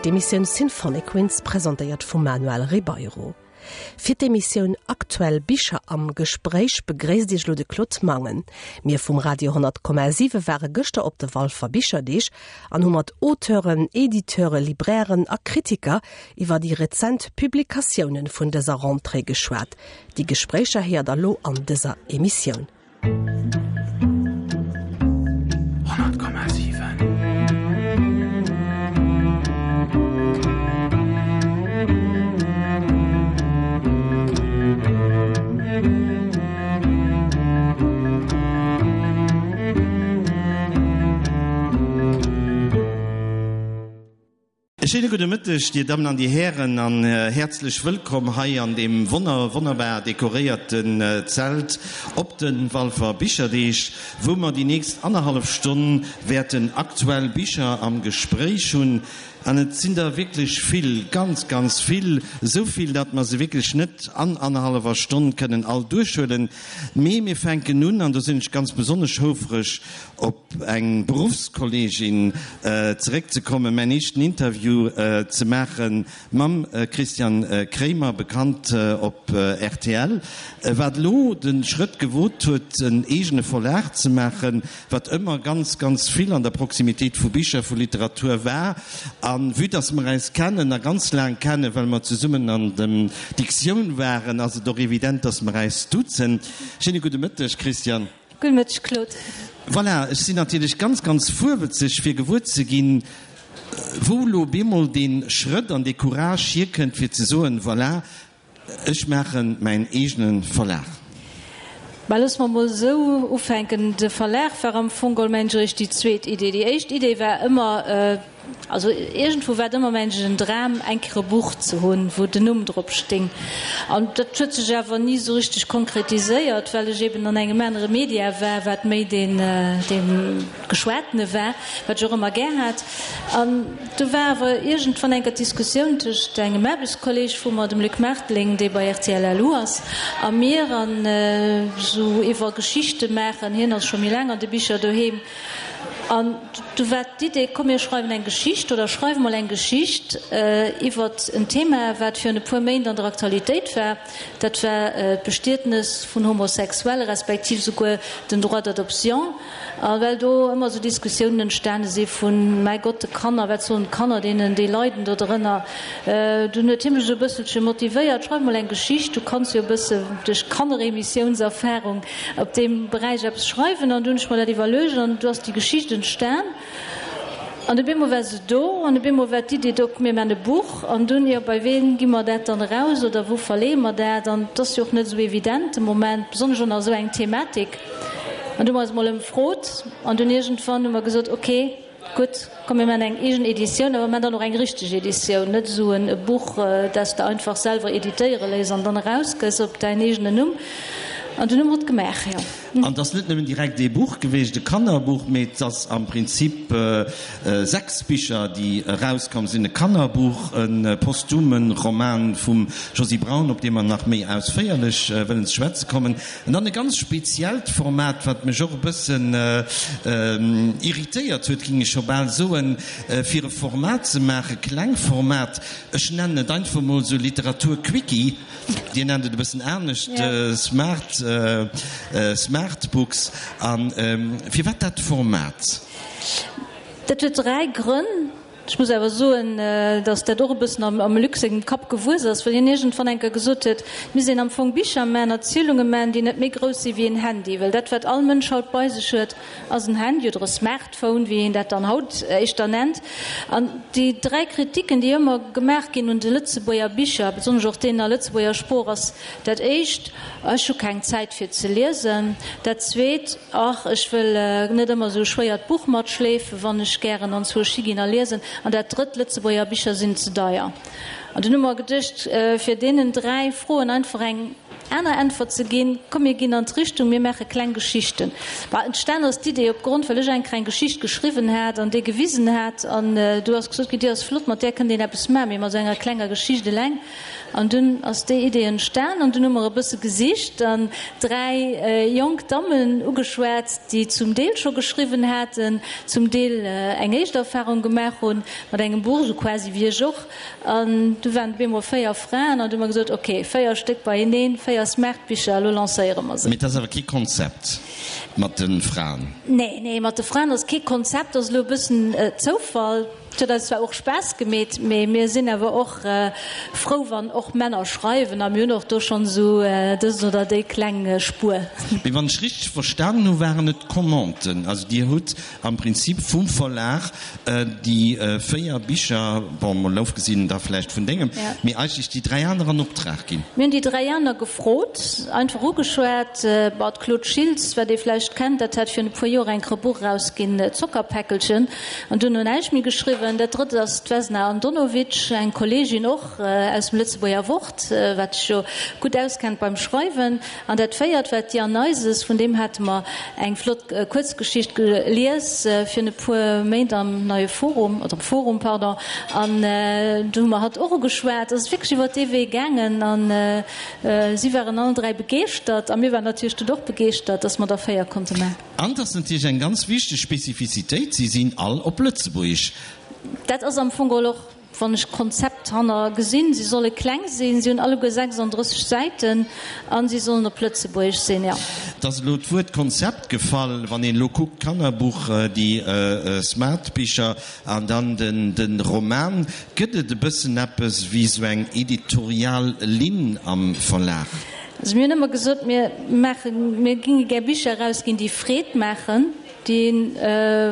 D'Emissioun Symphonic Winds, presentéiert vum Manuel Ribeiro. Fir d'Emissioun Aktuell Bicher am Gespréich begréisst Iech elo de Claude Mangen. Mir vum Radio 10,7 ware gëschter op de Walfer Bicherdeeg an hu mat Auteuren, Editeuren, Librairen a Kritiker iwwer déi rezent Publikatiounen vun dëser Rentrée geschwat. Déi Gespréicher héiert der lo an dëser Emissioun. 100,7. E schéine gudde Mëtteg, Dir Dammen an Dir Hären, an häerzlech wëllkomm hei an deem wonner, wonnerbar dekoréierten Zelt op de Walfer Bicherdeeg, wou mer déi nächst annerhallef Stonn wäerten aktuell Bicher am Gespréich hunn. An et sinn der wierklech vill, ganz, ganz vill, esou vill, datt mer se wierklech net an annerhallwer Stonn kënnen all duerchhuelen. Mee mir fänken un, an do sinn ech ganz besonnesch houfreg op eng Beruffskolleegin zeréckzekommen, mäin éischten Interview ze maache mam Christian Kremer, bekannt op rtl, wat elo de Schrëtt gewot huet, en eegene Verlag ze maachen, wat ëmmer ganz, ganz vill an der Proximitéit vu Bicher, vu Literatur war. A vue dass mer äis kennen a ganz laang kennen, well mer zesummen an der Diktioun waren, ass et och evident, dass mer äis duzen. Schéine gudde Mëtteg, Christian. Gudde Mëtteg, Claude. Voilà, ech sinn natierlech ganz, ganz fuerwëtzeg, fir gewuer ze ginn, wou elo bemol dee Schrëtt an dee Courage hierkënnt, fir ze soen, Voilà, ech maache mäin eegene Verlag. Mä loosse mer emol esou ufänken, De Verlag war am Fong geholl, mengen ech, eréischt déi zweet Idee. Déi éischt Idee war ëmmer, Also iergendwou war et ëmmer mengen ech en Dram eng Kéier e Buch ze hunn, wou den Numm drop sting. An dat huet sech awer ni esou richteg konkretiséiert, well ech eben an engem anere Media war, wat méi deen dee geschwatene war, wat ech och ëmmer gär hat. An du war awer iergendwann eng Kéier d'Diskussioun tëscht engem Aarbechtskolleg vu mer, dem Luc Marteling, dee bei rtl LU ass, a mir, an esou iwwer Geschichte maachen, hien ass scho méi laang an de Bicher doheem, An du war d'Idee, komm mir schreiwen eng Geschicht oder schreiwe mol eng Geschicht iwwert en Thema, wat virun e puer Méint an der Aktualitéit war. Dat war d'Bestietnes vun Homosexuelle respektiv souguer den Droit d'adoption. A well do ëmmer esou Diskussiounen entstane si vun, mäi Gott, de Kanner, wat soen d'Kanner deenen, déi leiden do drënner. Dunn huet hie mech esou e bësselche motivéiert, schreif mol eng Geschicht, du kanns jo e bësse duerch Kanneremissiounserfarung op deem Beräich eppes schreiwen. An du hunn ech mer dat iwwerluecht an du ass déi Geschicht entstan. An op eemol war se do an op eemol war d'Idee do, mir man e Buch. An dunn, jo, bei ween gi mer dat dann eraus oder wou verleeë mer dat? An et ass jo och net esou evident de Moment, besonnesch och nach esou eng Thematik. An du hu mer eis emol ëmfrot an dunn iergendwann hu mer gesot, okay, Gutt, komm mir maachen eng eegen Editioun, awer mir maachen dann och eng richteg Editioun, net esou e Buch, dat s de einfach selwer editéiere léiss an dann erausgëss op däin eegenen Numm. An dunn hu mer et gemaach, jo. An et ass net nëmmen direkt ee Buch geweecht, e Kannerbuch, mee et ass am Prinzip 6 Bicher, déi erauskomm sinn, e Kannerbuch, e posthume Roman vum Josy Braun, op dee mer nach méi ausféierlech wëllen ze schwätze kommen, An dann e ganz speziellt Format, wat mech och e bëssen irritéiert huet, ging ech scho bal soen, fir e Format ze maachen, Klengformat, ech nennen et einfach mol esou Literatur-Quickie, Dir nennt et e bëssen anescht, Smart, Smartbooks. A firwat dat Format? Dat huet 3 Grënn. Ech muss awer soen, datt dat och e bëssen am Luc sengem Kapp gewuess ass, well hien iergendwann eng Kéier gesot huet, et misst een am Fong Bicher man, Erzielunge man, déi net méi grouss si wéi en Handy, well dat, wat all Mënsch haut bei sech huet, ass en Handy oder e Smartphone, wéi een dat dann haut éischter nennt. An déi 3 Kritiken, déi ëmmer gemaach ginn un de Lëtzebuerger Bicher, besonnesch och deenen a Lëtzebuerger Sprooch, ass dat éischt, Ech hu keng Zäit fir ze liesen. Dat zweet, Ach, ech wëll net ëmmer esou e schwéiert Buch matschleefen, wann ech gären anzwousch higinn a liesen. An dat drëtt, Lëtzebuerger Bicher sinn ze deier. An dunn hu mer geduecht, fir deenen 3 Froen einfach eng. aner Äntwert ze ginn, Komm mir ginn an d'Richtung, mir maache kleng Geschichten. Bah, entstan ass d'Idee opgrond, well ech eng kleng Geschicht geschriwwen hat an déi gewisen hat an du ass gesot ginn, déi ass flott, mat där kënnt een eppes maachen, mee mat esou enger klenger Geschicht eleng. An dunn ass déi Idee entstan an dunn hu mer e bësse gesicht an 3 jonk Dammen ugeschwat, déi zum Deel scho geschriwwen haten, zum Deel eng éischt Erfahrung gemaach hunn mat engem Buch, esou quasi wéi ech och. An du waren et op eemol 4 Fraen an du hu mer gesot, ok, 4 Stéck beieneen, 4 Smartbicher, elo lancéiere mer se. Mee et ass awer kee Konzept mat de Fraen? Nee, nee, mat de Fraen ass kee Konzept, ass elo e bëssen Zoufall. Et huet eis zwar och Spaass gemeet, mee mir sinn awer och frou, wann och Männer schreiwen a mir hunn och do schonn esou dës oder déi kleng Spuer. Mee wann ech richteg verstanen hu waren et Commanden, also Dir hutt am Prinzip vum Verlag déi 4 Bicher, bon mol ofgesinn da vläicht vun dengem, mee eigentlech déi 3 aner an Optrag ginn. Mir hunn déi 3 aner gefrot, einfach ugeschwat. Bon, d'Claude Schiltz, wat ee vläicht kennt, dat hat virun e puer Joer eng Buch erausginn, Zockerpäckelchen, an duerno näischt méi geschriwwen. Dat drëtt ass d'Vesna Andonovic, eng Kolleegin och aus dem Lëtzebuerger Wort, wat sech jo gutt auskennt beim Schreiwen. An dat véiert war d'Diane Neises, vun deem hate mer eng flott Kuerzgeschicht gelies virun e puer Méint am Neie Forum, oder am Forum, pardon, an do hu mer hatt och ugeschwat. Et ass wierklech iwwer dee Wee gaangen a si waren allen 3 begeeschtert a mir waren natierlech dunn och begeeschtert, dass mer der 4 konnte maachen. An et ass natierlech eng ganz wichteg Spezifizitéit, si sinn all op Lëtzebuergesch. Dat ass am Fong geholl och Wann ech d'Konzept hanner gesinn, si solle kleng sinn, si hunn alleguer 36 Säiten a si sollen op Lëtzebuergesch sinn, jo. Et ass elo d'Wuert Konzept gefall. Wann een elo kuckt, d'Kannerbuch, déi Smartbicher an dann de Roman, gëtt et e bëssen eppes wéi esou eng editorial Linn am Verlag? Also mir hunn ëmmer gesot, mir maachen, mir géinge gär Bicher erausginn, déi Freed maachen. dee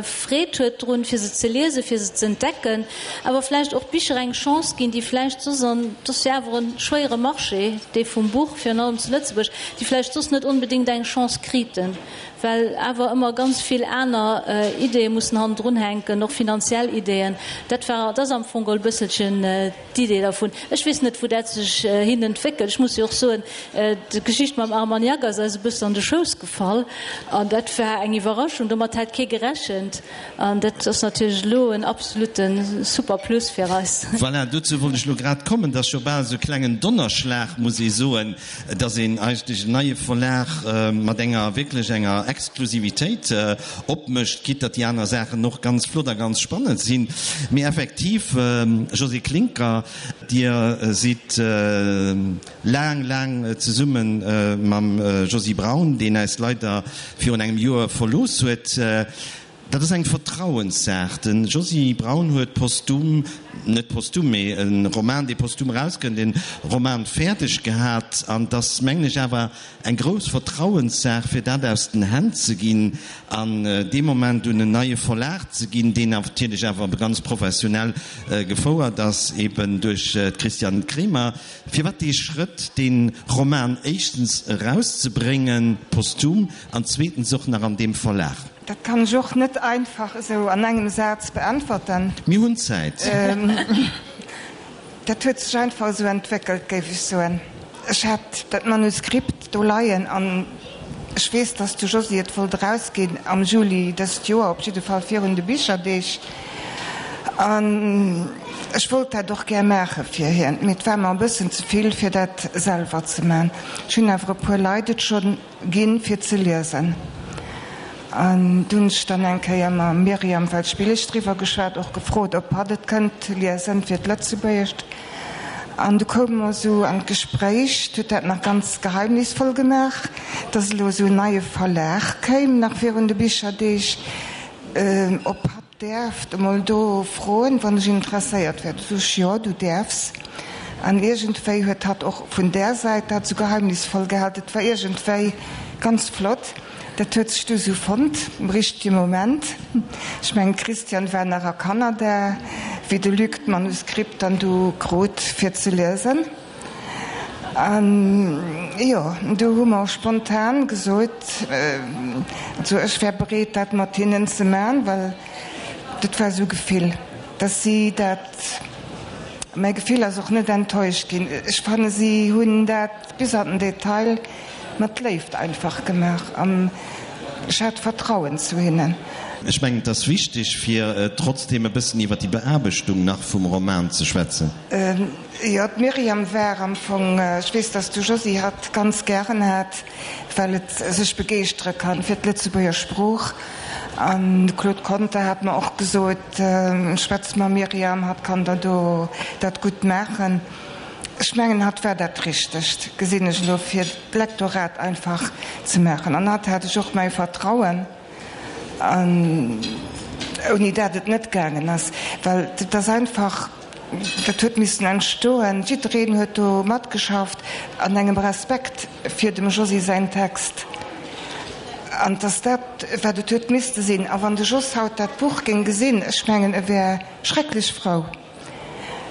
Freed huet drun, fir se ze liesen, fir se ze entdecken, awer vläicht och Bicher eng Chance ginn, déi vläicht soss, an et ass jo awer e schwéiere Marché, dee vum Buch, virun allem zu Lëtzebuerg, déi vläicht soss net onbedéngt eng Chance kriten, well awer ëmmer ganz vill aner Ideeë mussen hannendrun hänken, och finanziell Ideeën. Dat war, dat ass am Fong geholl e bësselchen d'Idee dervun. Ech weess net, wou dat sech hin entwéckelt. Ech muss jo och soen, d'Geschicht mam Armagnac ass eis e bëssen an de Schouss gefall an dat war eng Iwwerraschung. Domat hat kee gerechent an dat ass natierlech elo en absolute super Plus fir eis. Voilà, dozou wollt ech elo grad kommen. Dat ass jo bal esou e klengen Donnerschlag, muss ee soen, dass een eigentlech en neie Verlag mat enger wierklech enger Exklusivitéit opmécht, quitte datt déi aner Saachen och ganz flott a ganz spannend sinn. Mee effektiv, Josée Klincker, Dir sidd laang, laang zesumme mam Josy Braun, deen äis leider virun engem Joer verlooss huet. Dat ass eng Vertrauenssaach. De Josy Braun huet posthum, net posthum, mee e Roman, dee posthum erauskënnt, e Roman fäerdeg gehat. An et ass, mengen ech, awer eng grouss Vertrauenssaach, fir dat aus den Hänn ze ginn an dee Moment un en neie Verlag ze ginn, deen natierlech awer ganz professionell gefouert ass, eben duerch d'Christiane Kremer. Firwat dee Schrëtt, dee Roman éischtens erauszebréngen, posthum, an zweetens och nach an deem Verlag? Dat kann ech och net einfach esou an engem Saz beäntwerten. Mir hunn Zäit. Dat huet sech einfach esou entwéckelt, géif ech soen. Ech hat dat Manuskript do leien an ech weess, dass de Josy et wollt erausginn am Juli dëst Joer, op jidde Fall virun de Bicherdeeg. An ech wollt dat och gär maache fir hien, mee et war mer e bëssen ze vill, fir dat selwer ze man. Ech hunn awer e puer Leit et schonn Ginn fir ze liesen. An du hunn ech dann eng Kéier mam Myriam Welschbillig driwwer geschwat, och gefrot, ob hatt et kënnt liesen fir d'Lëtzebuergescht. An du koume mer esou an d'Gespréich, huet dat nach ganz geheimnisvoll gemaach, dass elo esou en neie Verlag kéim, nach virun de Bicherdeeg, ob hatt Däerft emol do froen, wann ech interesséiert wär. Du sot ech, Jo, du däerfs. An iergendwéi huet hatt och vun där Säit dat sou geheimnisvoll gehal. Dat war iergendwéi ganz flott. Dat huet sech du sou fonnt am richtege Moment. Ech mengen, d'Christiane war nach a Kanada, wéi de Luc d'Manuskript dann du krut fir ze liesen. An jo, du hu mer spontan gesot, also ech wär bereet dat mat hinnen ze man, well dat war esou Gefill, dass si dat. Mäi Gefill ass och net enttäuscht ginn. Ech fanne si hunn dat bis an den Detail mat Léift einfach gemaach an ech hat Vertrauen zu hinnen. Ech mengen, et ass wichteg, fir trotzdeem e bëssen iwwer déi Beaarbechtung nach vum Roman ze schwätzen. Jo, d'Myriam war am Fong, ech weess, dass de Josy hatt ganz gären hat, well et sech begeeschtere kann fir d'Lëtzebuerger Sprooch. An de Claude Conter hat mer och gesot, Schwätz mam Myriam, hatt kann der do dat gutt maachen. Ech mengen, hatt war dat Richtegt, gesinn ech elo, fir d'Lektorat einfach ze maachen. An hatt hat ech och mäi Vertrauen, an ouni dat et net gaangen ass, well et ass einfach, Dat huet missen entstoen. Jiddereen huet do matgeschafft an engem Respekt fir dem Josy säin Text. An 't ass dat, wat et huet misste sinn. A wann de Jos haut dat Buch géing gesinn, ech mengen, e wär schrecklech frou.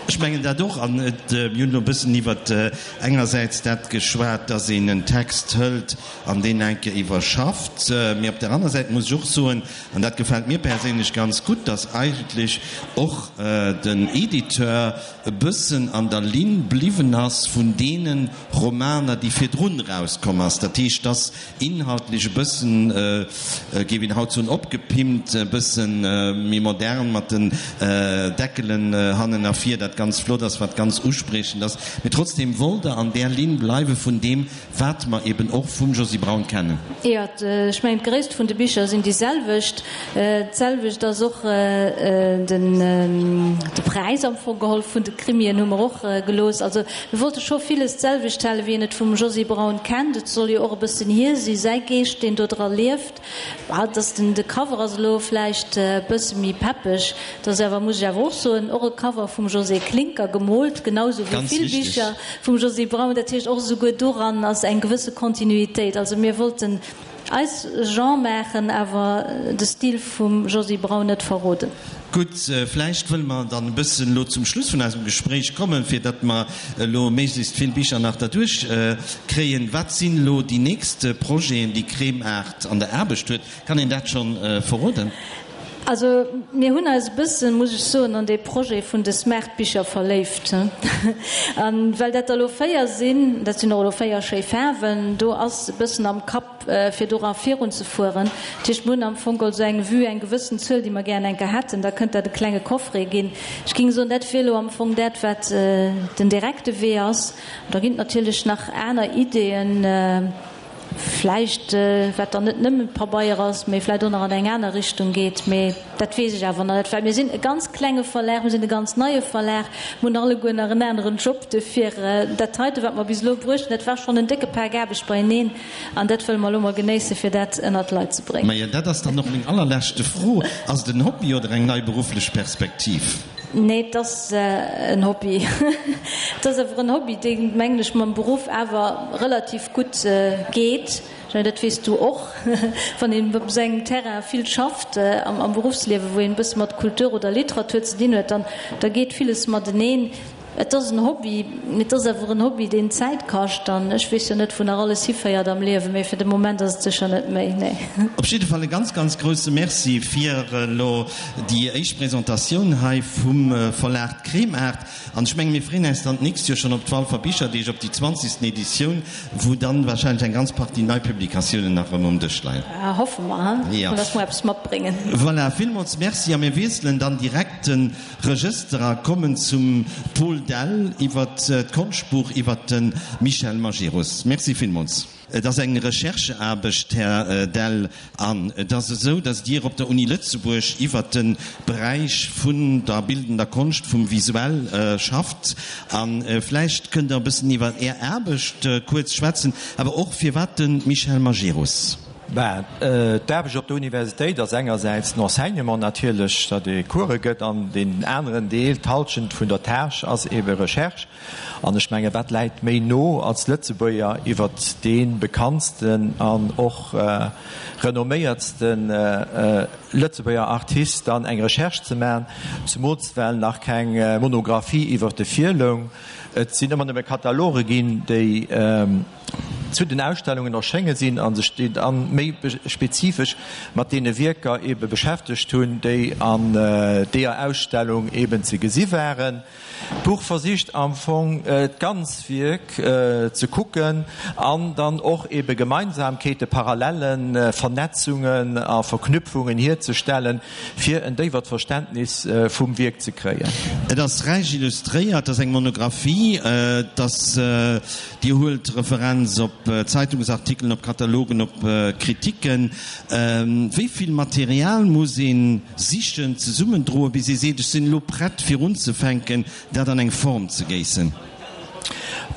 Ech mengen dat och. An et, mir hunn elo e bëssen iwwert engersäits dat geschwat, dass een en Text hëlt an deen eng Kéier iwwerschafft. Mee op der aner Säit muss ech och soen, An dat gefält mir perséinlech ganz gutt, dass eigentlech och den Editeur e bëssen an der Linn bliwwen ass vun deene Romaner, déi virdrun erauskomm ass. Dat heescht, dass inhaltlech e bëssen, géif een haut soen, opgepimpt, e bësse méi modern mat den Deckelen hannen a vir, dat ganz flott ass, wat ganz uspriechend ass. Mee trotzdem wollt Der an där Linn bleiwe vun deem, Wat mer eben och vum Josy Braun kennen. Jo, ech mengen d'Gréisst vun de Bicher sinn déi selwecht. D'selwecht ass och den de Präis am Fong geholl vun de Krimien hu mer och gelooss. Also mir wollte scho villes d'selwecht halen, wéi een et vum Josy Braun kennt. Et soll jo och e bëssen hie si, säi Geescht, deen do dra lieft. Bah, dass den de Cover ass elo vläicht e bësse méi peppeg, et ass awer, muss ech awer och soen, och e Cover vum Josée Klincker gemoolt, genau sou wéi vill Bicher vum Josy Braun. Dat heescht, och esouguer doran ass eng gewësse Kontinuitéit. Also mir wollten eis Genre maachen, awer de Stil vum Josy Braun net verroden. Gutt, vläicht wëlle mer dann e bëssen elo zum Schluss vun eisem Gespréich kommen, fir datt mer elo méiglechst vill Bicher nach derduerch kréien. Wat sinn elo déi nächst Projeten, déi Kremart an der Aarbecht huet? Kann een dat schonn verroden? Also mir hunn eis e bëssen, muss ech soen, an dee Projet vun de Smartbicher verléift. A well dat der elo 4 sinn, dat sinn och elo 4 schéi Faarwen, do ass e bëssen am Kapp, fir dora virun ze fueren. Dat heescht, mir hunn am Fong geholl esou eng Vue, eng gewëssen Zuel, déi mer gären eng Kéier hätten. Da kënnt dat e klenge Coffret ginn. Ech géing soen, dat wier elo am Fong dat, wat den direkte Wee ass. Da ginn et natierlech nach aner Ideeën, vläicht, wat dann net nëmme Pabeier ass, mee vläicht och nach an eng aner Richtung geet. Mee dat weess ech awer nach net, well mir sinn e ganz klenge Verlag, mir sinn e ganz neie Verlag, mir hunn alleguer nach en aneren Job. Duerfir, dat heite, wat mer bis elo bruecht hunn, dat war schonn en décke Pak Aarbecht beieneen. An dat wëlle mer elo mol genéissen, fir dat ënnert d'Leit ze bréngen. Majo, dat ass dann och meng allerleschte Fro, Ass et en Hobby oder eng nei berufflech Perspektiv? Nee, et ass en Hobby. Et ass awer en Hobby, dee, mengen ech, mam Beruff awer relativ gutt geet. Ech mengen, dat weess du och, wann een op esou engem Terrain vill schafft am Beruffsliewen, wou een e bësse mat Kultur oder Literatur ze dinn huet, dann da geet villes mateneen. Et ass en Hobby, mee et ass awer en Hobby, deen Zäit kascht. An ech weess jo net, wou nach alles hiféiert am Liewen, mee fir de Moment ass et sécher net méi, nee. Op jidde Fall e ganz, ganz grousse Merci fir elo déi éischt Presentatioun hei vum Verlag Kremart. An ech menge mir freeën äis dann d'nächst Joer schonn op d'Walfer Bicherdeeg, op déi zwanzigsten Editioun, wou dann wahrscheinlech eng ganz Partie nei Publikatiounen nach erëm um Dësch leien. Hoffe mer, he, dass mer eppes matbréngen. Voilà, villmools Merci a mir wiesselen dann direkt den Regëster a kommen zum Paul Dell iwwer d'Konschtbuch iwwer de Michel Majerus. Merci villmools. Et ass eng Rechercheaarbecht, Här Dell, an et ass esou, datt Dir op der Uni Lëtzebuerg iwwer de Beräich vun der bildender Konscht, vum Visuell schafft. A vläicht kënnt Der e bëssen iwwer Är Aarbecht kuerz schwätzen, awer och firwat de Michel Majerus? Ben, d'Aarbecht op der Universitéit ass engersäits den Enseignement natierlech, datt ee Course gëtt, an deen aneren Deel, d'Halschent vun der Tâche, ass eebe Recherche. An ech menge wat läit méi no als Lëtzebuerger iwwert dee bekanntsten an och renomméiertste Lëtzebuerger Artist dann eng Recherche ze maachen, zemools well nach keng Monographie iwwert e virloung. Et sinn ëmmer nëmme Kataloge ginn, déi. zu den Ausstellungen erschénge sinn a sech déi dann méi spezifesch mat deene Wierker eebe beschäftegt hunn, déi an deeër Ausstellung eeben ze gesi waren. D'Buch versicht am Fong d'ganz Wierk ze kucken an dann och ebe Gemeinsamkeete, Parallellen, Vernetzungen a Verknüpfungen hierzestellen, fir en déiwert Verständnis vum Wierk ze kréien. Et ass räich illustréiert, et ass eng Monographie, et ass, Dir huelt Referenz op Zeitungsartikelen, op Katalogen, op Kritiken. Wéi vill Material muss ee sichen, zesummendroen, bis ee seet, ech sinn elo prett fir unzefänken, dat an eng Form ze géissen?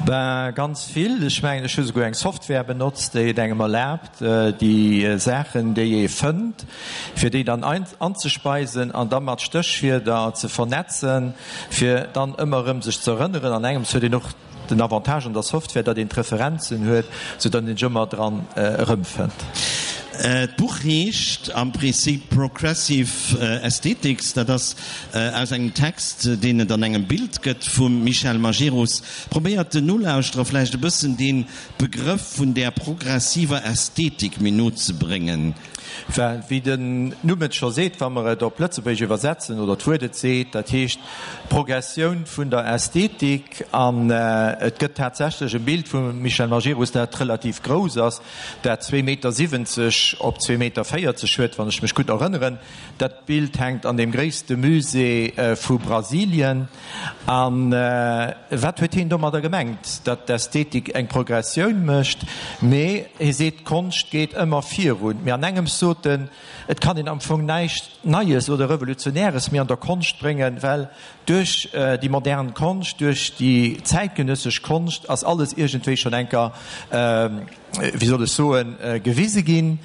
Ben, ganz vill. Ech mengen, ech hu souguer eng Software benotzt, déi et engem erlaabt, déi Saachen, déi ee fënnt, fir déi dann anzespeisen an da mat Stéchwierder ze vernetzen, fir dann ëmmer erëm sech ze erënneren. An engems huet een och Den Avantage an der Software, datt een d'Referenzen huet, sou datt een sech ëmmer dran erëmfënnt. D'Buch heescht am Prinzip Progressive Aesthetics. Dat ass aus engem Text, deen et an engem Bild gëtt vum Michel Majerus. Probéiert den Nolauschterer vläicht e bëssen dee Begrëff vun där progressiver Ästhetik méi no ze bréngen. Well, wéi den Numm et scho seet, wa mer et op Lëtzebuergesch iwwersetzen, oder d'Wuert et seet, dat heescht Progressioun vun der Ästhetik. An et gëtt tatsächlech e Bild vum Michel Majerus, dat relativ grouss ass, dat zwee Meter 70 op zwee Meter 40 huet, wann ech mech gutt erënneren. Dat Bild hänkt an deem gréisste Musée vu Brasilien. A wat huet hien domadder gemengt? Datt d'Ästhetik eng Progressioun mécht. Mee hie seet, d'Konscht geet ëmmer virun. Mee an engems sot en, et kann een am Fong näischt Neies oder Revolutionäres méi an der Konscht bréngen, well duerch déi modern Konscht, duerch déi zäitgenëssesch Konscht ass alles iergendwéi schonn enker, wéi soll ech soen, gewise ginn.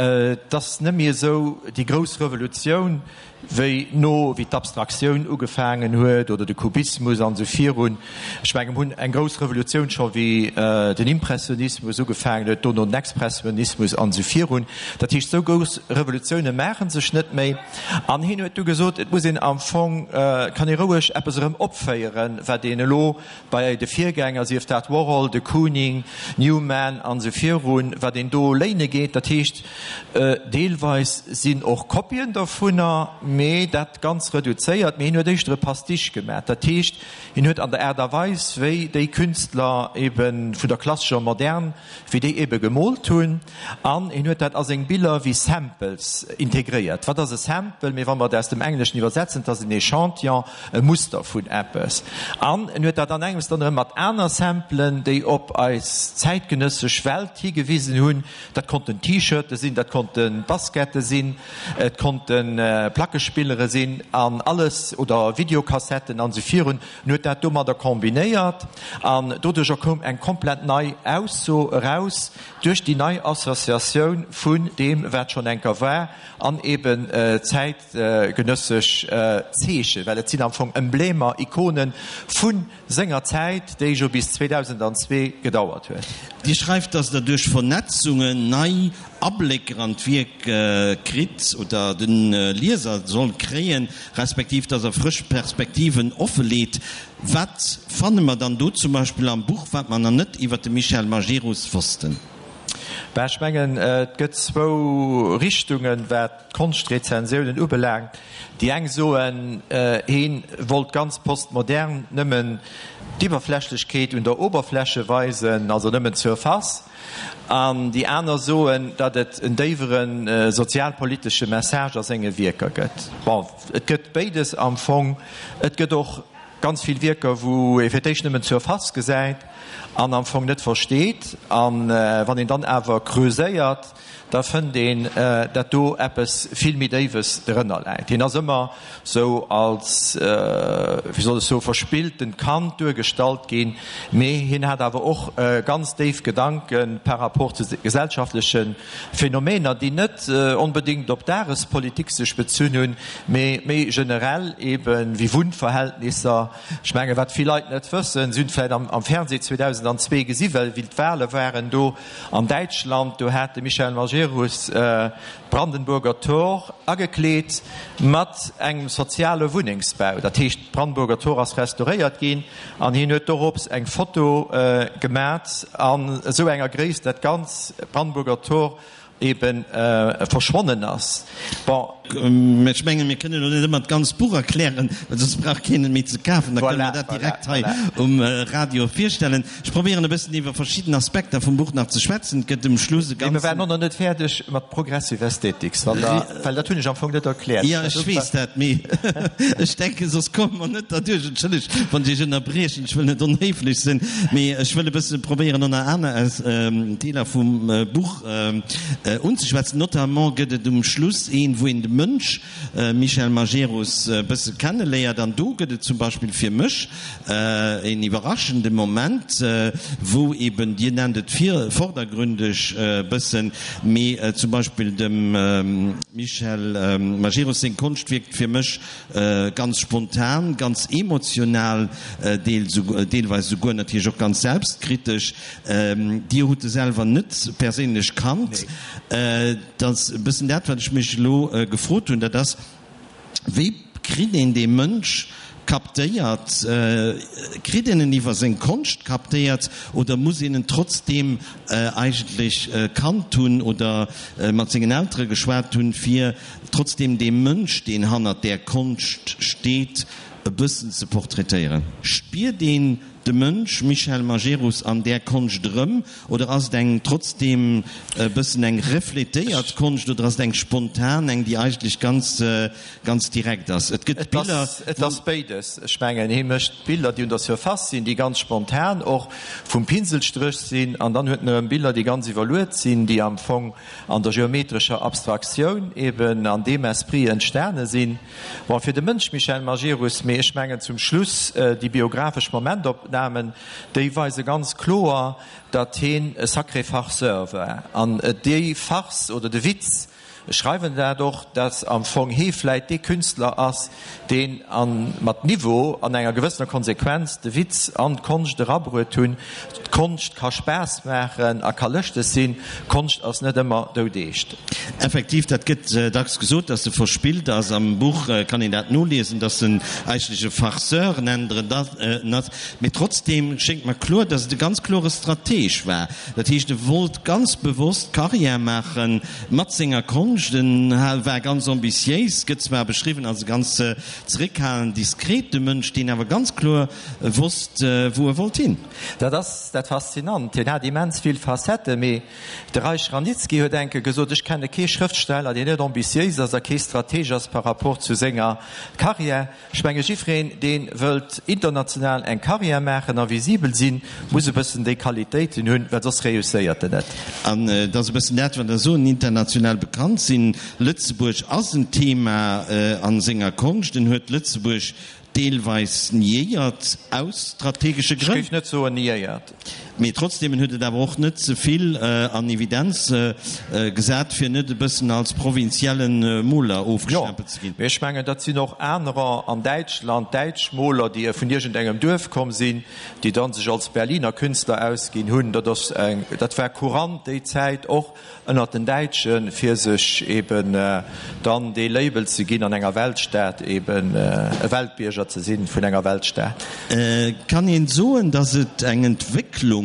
Et ass net méi esou déi grouss Revolutioun, wéi no wéi d'Abstraktioun ugefaangen huet oder de Kubismus an esou virun. Ech mengen, mir hunn eng grouss Revolutioun scho wéi den Impressionismus ugefaangen huet, dono den Expressionismus an esou virun. Dat heescht, esou grouss Revolutioune maache sech net méi. An hien huet du gesot, et muss een am Fong, et kann ee roueg eppes erëm opféieren, wat een elo Bei de Virgänger, sief dat Warhol, de Kooning, Newman an esou virun, wat een do léine geet. Dat heescht, deelweis sinn och Kopien dovunner, mee dat ganz reduzéiert. Mee hien huet éischter e Pastiche gemaach. Dat heescht, hien huet an der Aart a Weis, wéi déi Künstler ebe vun der klassescher Modern, wéi déi ebe gemoolt hunn, an hien huet dat a seng Biller wéi Samples integréiert. Wat ass e Sample? Mee wa mer et aus dem Engleschen iwwersetzen, et ass en Echantillon, e Muster vun eppes. An en huet dat an engems dann erëm mat aner Samplen, déi op eis zäitgenëssesch Welt higewisen hunn. Dat konnten T-Shirte sinn, dat konnte Baskette sinn, et konnte Plackespillere sinn an alles, oder Videokassetten an esou virun. En huet dat domadder kombinéiert an doduercher koum eng komplett nei Ausso eraus, duerch déi nei Associatioun vun deem, wat schonn enker war an eben zäitgenëssesch Zeechen, well et sinn am Fong Emblemer, Ikonen vu senger Zäit, déi jo bis 2002 gedauert huet. Dir schreift, dass Der duerch Vernetzungen nei Ablécker an d'Wierk kritt oder de Lieser soll kréien, respektiv dass er frësch Perspektiven offeleet. Wat fanne mer dann do zum Beispill am Buch, wat mer nach net iwwer de Michel Majerus wossten? Ben, ech mengen, et gëtt zwou Richtungen, wat d'Konschtrezensiounen ubelaangt. Déi eng soen, heen wollt ganz postmodern nëmmen d'Iwwerflächlechkeet un der Oberfläche weisen, also nëmmen d'Surface. An déi aner soen, datt et en déiwere sozialpolitesche Message a senge Wierker gëtt. Bon, et gëtt béides am Fong. Et gëtt och ganz vill Wierker, wou ee fir d'éischt nëmmen d'Surface gesäit an am Fong net versteet. A wann een dann awer creuséiert, da fënnt een, dat do eppes vill méi Déiwes drënner läit. Hien ass ëmmer sou als, wéi soll ech soen, verspilltent Kand duergestallt ginn, mee hien hat awer och ganz déif Gedanke par rapport zu gesellschaftleche Phänomener, déi net onbedéngt op Dagespolitik sech bezunn hunn, mee méi generell eben, wéi Wunnverhältnisser. Ech mengen, wat vill Leit net wëssen, si hunn vläicht am Fernseh. 2002 gesi well wéi d'Wahle waren do an Däitschland, do hat de Michel Majerus d'Brandenburger Tor agekleet mat engem soziale Wunnengsbau. Dat heescht, d'Brandenburger Tor ass restauréiert ginn an hien huet dorops eng Foto gemat an esou enger Gréisst, dat d'ganz Brandenburger Tor eben verschwonnen ass. Bon. Mä ech mengen, mir kënnen elo net ëmmer d'ganz Buch erklären, well soss brauch keen et méi ze kafen. Da kënne mer dat direkt hei um Radio virstellen. Ech probéieren e bëssen iwwer verschidden Aspekter vum Buch nach ze schwätzen. Et gëtt um Schluss e ganzen. Mee mir waren och nach net fäerdeg mat Progressive Aesthetics, wann Der, well dat hunn ech am Fong net erkläert. Jo, ech weess dat, mee ech denken, soss komme mer net derduerch. Entschëllegt, wann ech Iech ënnerbriechen, ech wëll net onhéiflech sinn, mee ech wëll e bësse probéieren, ënner aner Deeler vum Buch unzeschwätzen. Notamment gëtt et um Schluss een, wou een de Mënsch Michel Majerus e bësse kenneléiert. An do gëtt et zum Beispill fir mech een iwwerraschende Moment, wou eben, Dir nennt et vordergründeg e bëssen, mee zum Beispill dem Michel Majerus seng Konscht wierkt fir mech ganz spontan, ganz emotional, deelweis esouguer natierlech och ganz selbstkritesch. Dir hutt e selwer net perséinlech kannt. Dat ass e bëssen dat, wat ech mech elo gefrot hunn, dat ass, Wéi kritt een dee Mënsch captéiert? Kritt een en iwwer seng Konscht captéiert oder muss een en trotzdeem eigentlech kannt hunn oder mat sengen Eltere geschwat hunn, fir trotzdeem dee Mënsch, deen hannert där Konscht steet, e bëssen ze portraitéieren? Spiert een de Mënsch Michel Majerus an där Konscht erëm oder ass et eng trotzdeem e bëssen eng refletéiert Konscht oder ass et eng spontan, eng déi eigentlech ganz, ganz direkt ass? Et gëtt Biller, Et ass béides. Ech mengen, hie mécht Biller, déi un der Surface sinn, déi ganz spontan och vum Pinselstréch sinn an dann huet en erëm Biller, déi ganz iwwerluet sinn, déi am Fong an der geometrescher Abstraktioun eben an deem Esprit entstane sinn. Bon, fir de Mënsch Michel Majerus, mee ech mengen zum Schluss déi biographesch Momentopnamen, déi weise ganz kloer, datt heen e sacré Farceur war. An déi Farce oder de Witz, ech schreiwen dat och, datt am Fong hee vläit dee Künstler ass, deen a mat Niveau an enger gewëssener Konsequenz de Witz an d'Konscht erabruet hunn. D'Konscht ka Spaass maachen a ka lëschteg sinn, Konscht ass net ëmmer doudeescht. Effektiv, dat gëtt dacks gesot, dass e verspillt ass. Am Buch kann een dat noliesen, dass en eigentlech e Farceur, nennt Der en dat, mee trotzdeem schéngt mer kloer, dass et e ganz klore Strateg war. Dat heescht, e wollt ganz bewosst Karriär maache mat senger Konscht. En war ganz ambitiéis, gëtt zwar beschriwwen als e ganz zeréckhalend, diskrete Mënsch, deen awer ganz kloer wosst, wou e wollt hin. Dat ass dat Faszinant. Hien hat immens vill Facetten, mee de Reich Ranicki huet enke gesot, Ech kenne kee Schrëftsteller, deen net ambitiéis ass a kee Strateg ass par rapport zu senger Carrière. Ech menge jiddwereen, dee wëllt international eng Carrière maachen a visibel sinn, muss e bëssen déi Qualitéiten hunn, well soss reusséiert en net. An et ass e bëssen dat, wat Der soen, international bekannt sinn. Lëtzebuerg ass en Thema a senger Konscht. En huet Lëtzebuerg deelweis niéiert, aus strategesche Grënn. Ech géif net soen niéiert. Mee trotzdeem, en huet et awer och net ze vill an Evidenz gesat, fir net e bëssen als provinzielle Moler ofgestempelt ze ginn. Jo, mee ech mengen, dat sinn och anerer an Däitschland, däitsch Moler, déi vun iergendengem Duerf komm sinn, déi dann sech als Berliner Künstler ausginn hunn. Dat ass eng, dat war courant déi Zäit och ënnert den Däitschen, fir sech eben dann dee Label ze ginn, an enger Weltstad eben e Weltbierger ze sinn vun enger Weltstad. Kann een soen, datt et eng Entwécklung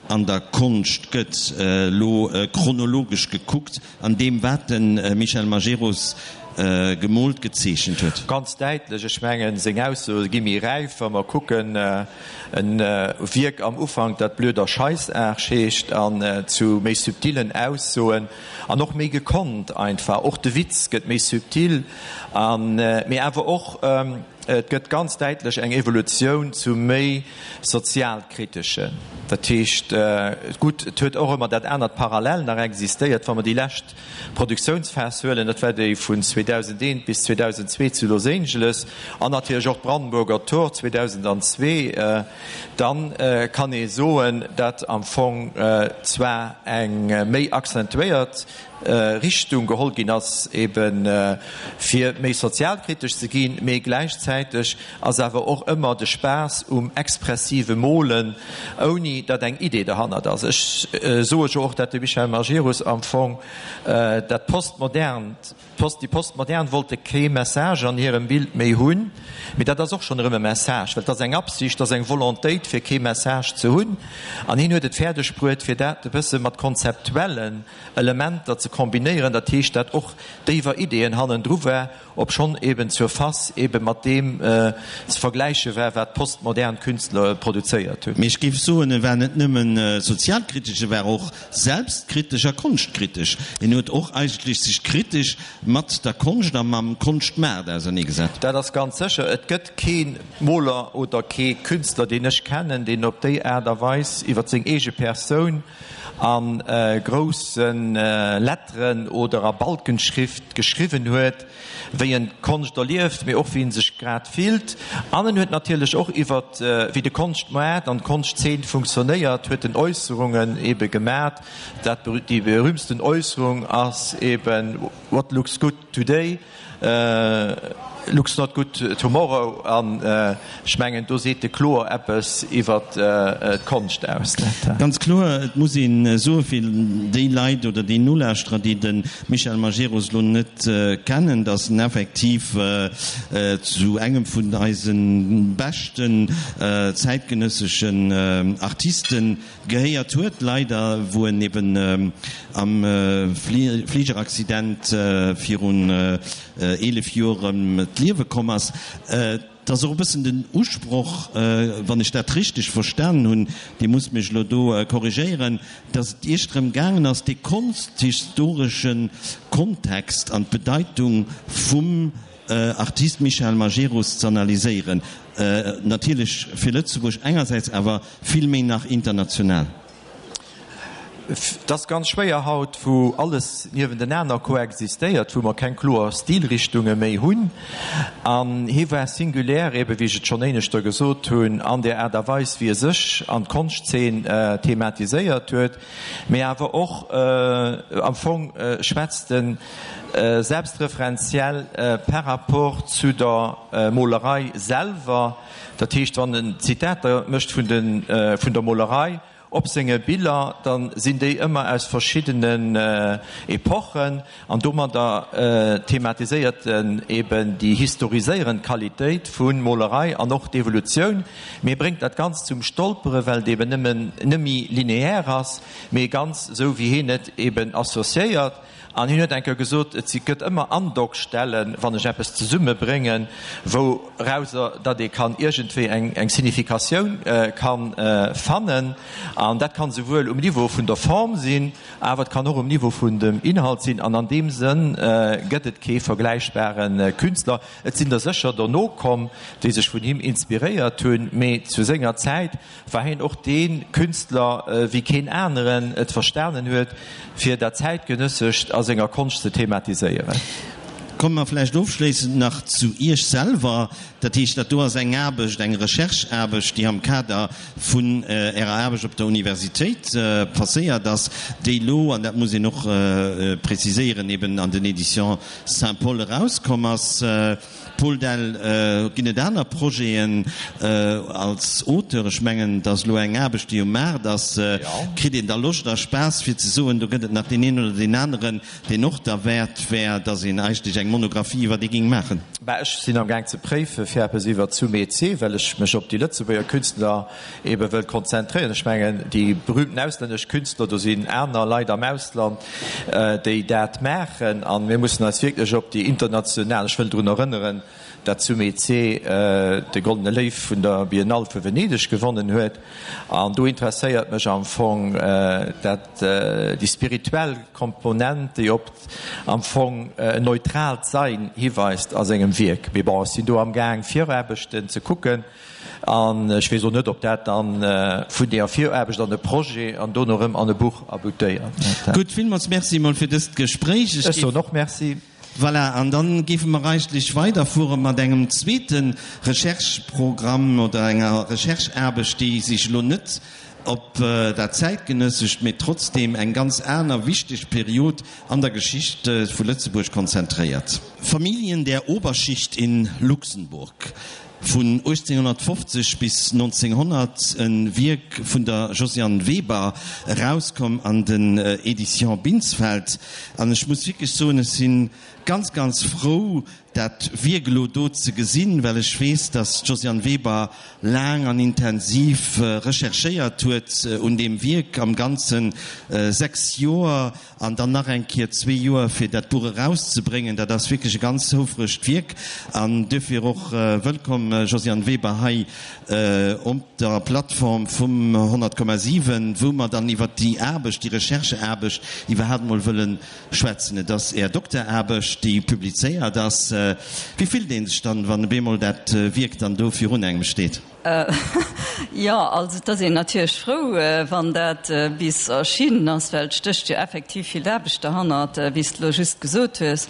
an der Konscht gëtt, elo chronologesch gekuckt, an deem wat de Michel Majerus gemoolt, gezeechent huet? Ganz däitlech. Ech mengen, seng Aussoe gi méi räif, wa mer kucken, En Wierk am Ufank, dat Blöder Scheißarsch heescht, an zu méi subtilen Aussoen an och méi gekonnt einfach. Och de Witz gëtt méi subtil, an mee awer och et gëtt ganz däitlech eng Evolutioun zu méi sozialkriteschen. Dat heescht, gutt, et huet och ëmmer dat anert parallel nach existéiert, wa mer déi lescht Produktiounsphas huelen, dat war déi vun 2001 bis 2002 zu Los Angeles an natierlech och d'Brandenburger Tor 2002, dann kann ee soen, dat am Fong zwar eng méi accentuéiert. Richtung geholl ginn ass, ebe fir méi sozialkritesch ze ginn, mee gläichzäiteg ass awer och ëmmer de Spaass um expressive Molen, ouni datt eng Idee derhannert ass. Ech soe jo och, datt de Michel Majerus am Fong dat Postmodernt, Déi Postmodern wollte kee Message an hirem Bild méi hunn, mee dat ass och schonn erëm e Message, well et ass eng Absicht, et ass eng Volontéit, fir kee Message ze hunn. An hien huet et fäerdeg bruet, fir dat e bësse mat konzeptuellen Elementer ze kombinéieren, dat heescht, dat och déiwer Ideeën hannendru war, obschonn eben zur Face ebe mat deem ze vergläiche war, wat d'postmodern Künstler produzéiert hunn. Mee ech géif soen, e war net nëmmen sozialkritesch, e war och Selbstkritesch a konschtkritesch. En huet och eigentlech sech kritesch mat der Konscht a mam Konschtmaart auserneegesat. Dat ass ganz sécher. Et gëtt kee Moler oder kee Künstler, deen ech kennen, deen op déi Aart a Weis iwwer seng eege Persoun a grousse Letteren oder a Balkenschrift geschriwwen huet, wéi en d'Konscht erlieft, mee och wéi en sech grad fillt. An en huet natierlech och iwwer wéi de Konschtmoart an d'Konschtzeen funktionéiert, huet en Äusserungen ebe gemat. Dat déi berühmtsten Äusserung ass eben, What looks good today, looks not good tomorrow. An ech mengen, do seet e kloer eppes iwwer d'Konscht aus. Ganz kloer, et muss ee soe fir déi Leit oder déi Nolauschterer, déi de Michel Majerus elo net kennen, datt en effektiv zu engem vun eise beschten zäitgenësseschen Artiste gehéiert huet, leider, wou en eben am Fligeraccident virun 11 Joer ëm d'Liewe komm ass. Et ass och e bëssen den Usproch, wann ech dat richteg verstanen hunn, Dir musst mech elo do korrigéieren, datt et Iech drëm gaangen ass, dee konsthistoresche Kontext an d'Bedeitung vum Artist Michel Majerus z'analyséieren. Natierlech fir Lëtzebuerg engersäits, awer vill méi nach international. Et ass ganz schwéier haut, wou alles niewentenaner koexistéiert, wou mer keng kloer Stilrichtunge méi hunn. An hie war singulär, ebe wéi ech et schonn éineschter gesot hunn, an där Aart a Weis, wéi e sech an d'Konschtzeen thematiséiert huet, mee awer och am Fong schwätzt e selbstreferenziell par rapport zu der Molerei selwer. Dat heescht, wann en Zitater mécht vun der Molerei, Op senge Biller, da sinn déi ëmmer aus verschiddenen Epochen an domadder thematiséiert en eben déi historiséierend Qualitéit vu Molerei an och d'Evolutioun, mee bréngt dat Ganzt zum Stolpere well et eben nëmmen nëmmi lineaire ass, mee ganz esou wéi hien et eben associéiert. An hien huet eng Kéier gesot, Et si gëtt ëmmer Andockstellen, wann ech eppes zesummebréngen, wourauser datt ee kann iergendwéi eng eng Significatioun kann fannen. An dat kann esouwuel um Niveau vun der Form sinn, awer et kann och um Niveau vun dem Inhalt sinn. An an deem Sënn gëtt et kee vergläichbare Künstler. Et sinn der sécher dono komm, déi sech vun him inspiréiert hunn, mee zu senger Zäit war hien och dee Künstler, wéi keen aneren et verstanen huet, fir dat Zäitgenëssescht a senger Konscht ze thematiséieren. Komme mer vläicht ofschléissend nach zu Iech selwer. Dat heescht, dat do ass eng Aarbecht, eng Rechercheaarbecht, déi am Kader vun Ärer Aarbecht op der Universitéit passéiert ass, déi elo, an dat muss een och preziséieren, eben an den Éditions Saint-Paul erauskomm ass. Paul Dell, Ginn et aner Projeten als Auteur? Ech mengen, et ass elo eng Aarbecht, déi um Maart ass. Kritt een da Loscht a Spaass, fir ze soen, do gëtt et nach deen een oder deen aneren, deen och derwäert wär, datt een eigentlech eng Monographie iwwer dee géing maachen? Bah, ech sinn am Gaang ze préife fir eppes iwwer Sumé Tse, well ech mech op déi Lëtzebuerger Künstler ebe wëll konzentréieren. Ech mengen, déi berühmten auslännesch Künstler, do sinn aner Leit am Ausland, déi dat maachen. A mir mussen eis wierklech op déi international, ech wëll drun erënneren, dat Sumé Tse de Goldene Léiw vun der Biennale vu Venedeg gewonnen huet. An do interesséiert mech am Fong dat, déi spirituell Komponent, déi op am Fong en neutraalt Sein hiweist a sengem Wierk. Mee bon, ech sinn do amgaang Viraarbechten ze kucken. An ech weess och net, ob dat dann vun deeër Viraarbecht an e Projet an dono erëm an e Buch aboutéiert. Gutt, villmools Merci emol fir dëst Gespréich. Ech soen och Merci. Voilà, an dann géife mer eigentlech weiderfuere mat engem zweete Rechercheprogramm oder enger Rechercheaarbecht, déi sech elo net. op dat Zäitgenëssescht, mee trotzdeem eng ganz aner wichteg Period an der Geschicht vu Lëtzebuerg konzentréiert. Familien der Oberschicht in Luxemburg, vun 1850 bis 1900, e Wierk vun der Josiane Weber, erauskomm an den Éditions Binsfeld. An ech muss wierklech soen, ech si ganz, ganz frou, dat Wierk elo do ze gesinn, well ech weess, dass d'Josiane Weber laang an intensiv recherchéiert huet un deem Wierk, am Ganze 6 Joer an dann nach eng Kéier zwee Joer, fir dat Buch erauszebréngen. Dat ass wierklech e ganz houfregt Wierk an duerfir och wëllkomm, Josiane Weber, hei op der Plattform vum 100,7, wou mer dann iwwert déi Aarbecht, déi Rechercheaarbecht iwwerhaapt emol wëlle schwätzen. Et ass Är Dokteraarbecht, déi publizéiert ass. Wéi fillt ee sech dann, wann op eemol dat Wierk dann do virun engem steet? Jo, also et ass een natierlech frou, wann dat bis erschinnen ass, well et stécht jo effektiv vill Aarbecht derhannert, wéi s de elo just gesot hues.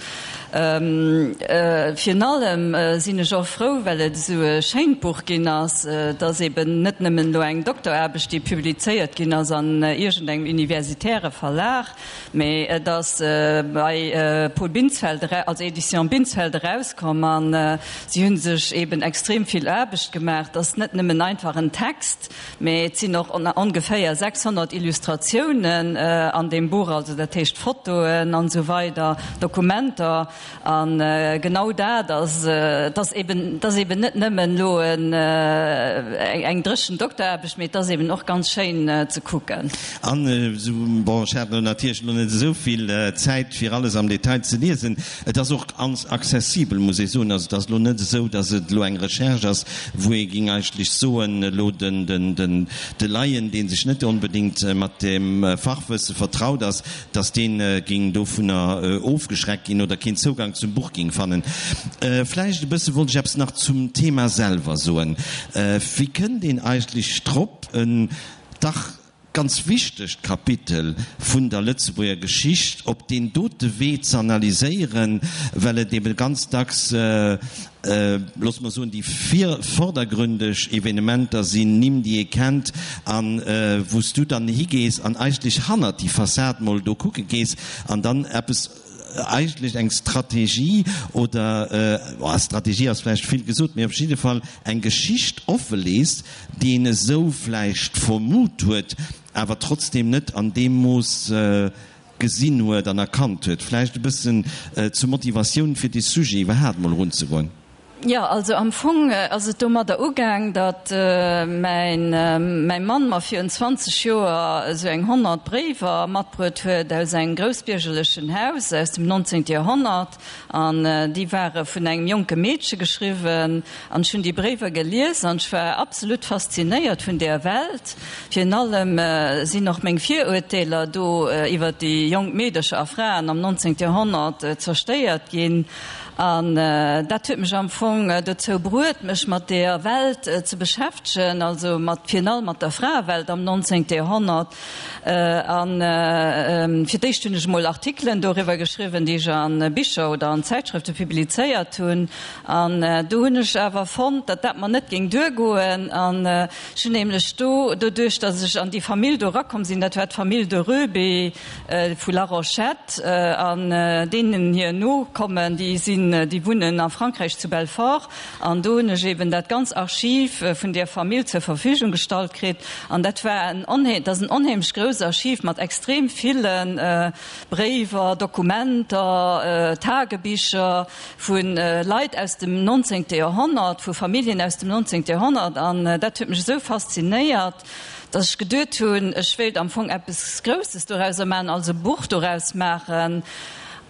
Virun allem sinn ech och frou, well et esou e schéint Buch ginn ass. Et ass eben net nëmmen elo eng Dokteraarbecht, déi publizéiert ginn ass an iergendengem universitäre Verlag, Mee et ass bei Paul Binsfeld, also Editions Binsfeld erauskomm a si hu sech eben extrem vill Aarbecht gemaach. Et ass net nëmmen einfach en Text, mee et sinn och ongeféier 600 Illustratiounen an deem Buch, also dat heescht Fotoen an esou weider, Dokumenter. A genau dat ass, et ass eben, et ass eben net nëmmen elo eng dréchen Dokteraarbecht, mee et ass eben och ganz schéin ze kucken. An esou, bon, ech hat elo natierlech elo net esou vill Zäit, fir alles am Detail ze liesen. Et ass och ganz accessibel, muss ee soen. Also et ass elo net esou, datt et elo eng Recherche ass, wou ee géing eigentlech soen, elo den, den, den, de Laien, dee sech net onbedéngt mat dem Fachwësse vertraut ass, dass deen géing dovunner ofgeschreckt ginn oder keen Zougang zum Buch géing fannen. Vläicht e bësse wollt ech eppes nach zum Thema selwer soen. Wéi kënnt een eigentlech drop, en dach ganz wichtegt Kapitel vun der Lëtzebuerger Geschicht op deen dote Wee ze analyséieren, well et ebe ganz dacks, loosse mer soen, déi vordergründeg Evenementer sinn, Nimm, déi ee kennt, a wou s du dann higees an eigentlech hannert déi Fassad mol do kucke gees an dann eppes, eigentlech eng Strategie oder, Strategie ass vläicht vill gesot, mee op jidde Fall eng Geschicht offelees, déi een esou vläicht vermut huet, awer trotzdem net an deem Mooss gesinn huet an erkannt huet, vläicht e bëssen zur Motivatioun fir dee Sujet iwwerhaapt mol erunzegoen? Jo, also am Fong ass et domadder ugaang, datt mäin mäi Mann mer virun 20 Joer esou eng 100 Bréiwer matbruet huet aus engem groussbiergerlechen Haus aus dem 19. Joerhonnert. An déi ware vun engem jonke Meedche geschriwwen. An ech hunn déi Bréiwer gelies an ech war absolut faszinéiert vun där Welt. Virun allem sinn och meng Viruerteeler do iwwer déi jonk Meedercher a Fraen am 19. Joerhonnert zerstéiert ginn. An dat huet mech am Fong dozou bruet, mech mat deeër Welt ze beschäftegen, also mat virun allem mat der Fraewelt am 19. Joerhonnert. A fir d'éischt hunn ech emol Artikelen doriwwer geschriwwen, déi ech a Bicher oder an Zäitschrëfte publizéiert hunn. An do hunn ech awer fonnt, datt dat mer net géing duergoen. An ech hunn nämlech do, doduerch datt ech an déi Famill do erakomm sinn, dat war d'Famill de Röbe vu Larochette, an deenen hir Nokommen, déi sinn, déi wunnen a Frankräich zu Belfort, An do hunn ech eben dat ganz Archiv vun där Famill zur Verfügung gestallt kritt. An dat war en onhee, dat ass en onheemlech grousst Archiv mat extrem ville Bréiwer, Dokumenter, Tagebicher vu Leit aus dem nonzéngte Joerhonnert, vu Familljen aus dem nonzéngte Joerhonnert. An dat huet mech esou faszinéiert, datt ech geduet hunn, ech wéilt am Fong eppes Grousses dorauser maachen, also e Buch doraus maachen.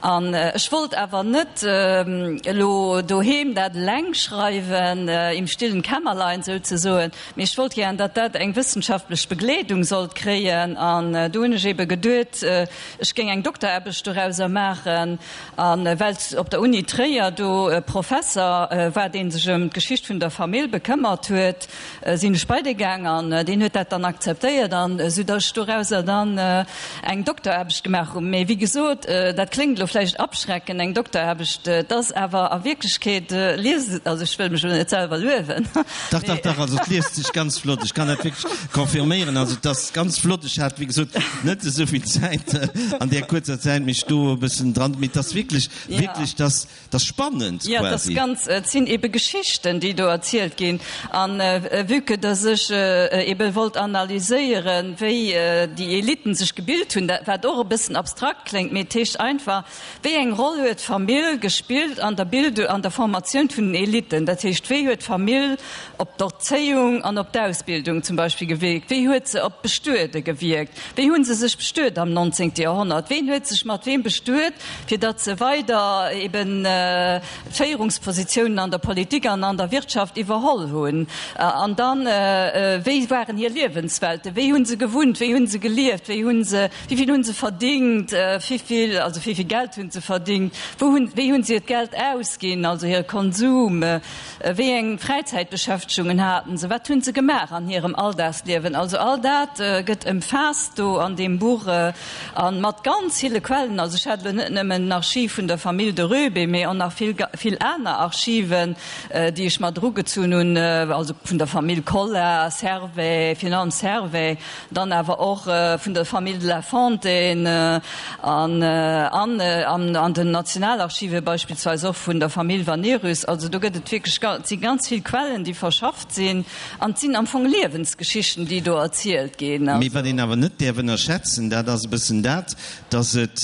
An ech wollt awer net elo doheem dat eleng schreiwen, im stillen Kämmerlein souzesoen, mee ech wollt gären, datt dat eng wëssenschaftlech Begleedung sollt kréien. An do hunn ech ebe geduet, ech géing eng Dokteraarbecht dorauser maachen. A well op der Uni Tréier do e Professer war, dee sech ëm d'Geschicht vun der Famill bekëmmert huet, sinn ech bei dee gaang an deen huet dat dann akzeptéiert an esou datt ech dorauser dann eng Dokteraarbecht gemaach hunn. Mee wéi gesot, dat kléngt elo. elo vläicht abschrecken, eng Dokteraarbecht, et ass awer a Wierklechkeet, liest et, also ech wëll mech elo net selwer luewen. Dach, dach, dach, also et liest sech ganz flott, ech kann dat wierklech confirméieren, also et ass ganz flott. Ech hat, wéi gesot, net esou vill Zäit an där kuerzer Zäit mech do e bëssen dran, mee et ass wierklech, wierklech, dass 't ass spannend quasi. Jo, et ass ganz, et sinn ebe Geschichten, déi do erzielt ginn. An vue que dass ech ebe wollt analyséieren, wéi déi Eliten sech gebilt hunn, dat wat och e bëssen abstrakt kléngt, mee et heescht einfach, wéi eng Roll huet d'Famill gespillt an der Bildung, an der Formatioun vun den Eliten? Dat heescht, wéi huet d'Famill op d'Erzéiung an op d'Ausbildung zum Beispill gewierkt? Wéi huet se op d'Bestuede gewierkt? Wéi hu se sech bestuet am 19. Joerhonnert? Ween huet sech mat weem bestuet, fir datt se weider eben d'Féierungspositiounen an der Politik an an der Wirtschaft iwwerholl hunn? An dann, wéi waren hir Liewenswelten? Wéi hu se gewunnt? Wéi hu se gelieft? Wéi hu se, wéi vill hu se verdingt? Wéi vill, also wéi vill Geld hu se verdingt? Wou hunn, wéi hu se hiert Geld ausginn, also hire Konsum? Wéi eng Fräizäitbeschäftegungen haten se? Wat hunn se gemaach an hirem Alldagsliewen? Also all dat gëtt ëmfaasst do an deem Buch a mat ganz ville Quellen. Also ech hat elo net nëmmen den Archiv vun der Famill de Röbe, mee och nach vill, vill aner Archiven, déi ech mat erugezunn hunn, also vun der Famill Collart, Servais, virun allem Servais, Dann awer och vun der Famill de la Fontaine an an den Nationalarchive beispillsweis och vun der Famill Vanerus. Also do gëtt et wierklech, et si ganz vill Quellen, déi verschafft sinn an et sinn am Fong Liewensgeschichten, déi do erzielt ginn. Mee wat een awer net däerf ënnerschätzen, dat ass e bëssen dat, dass et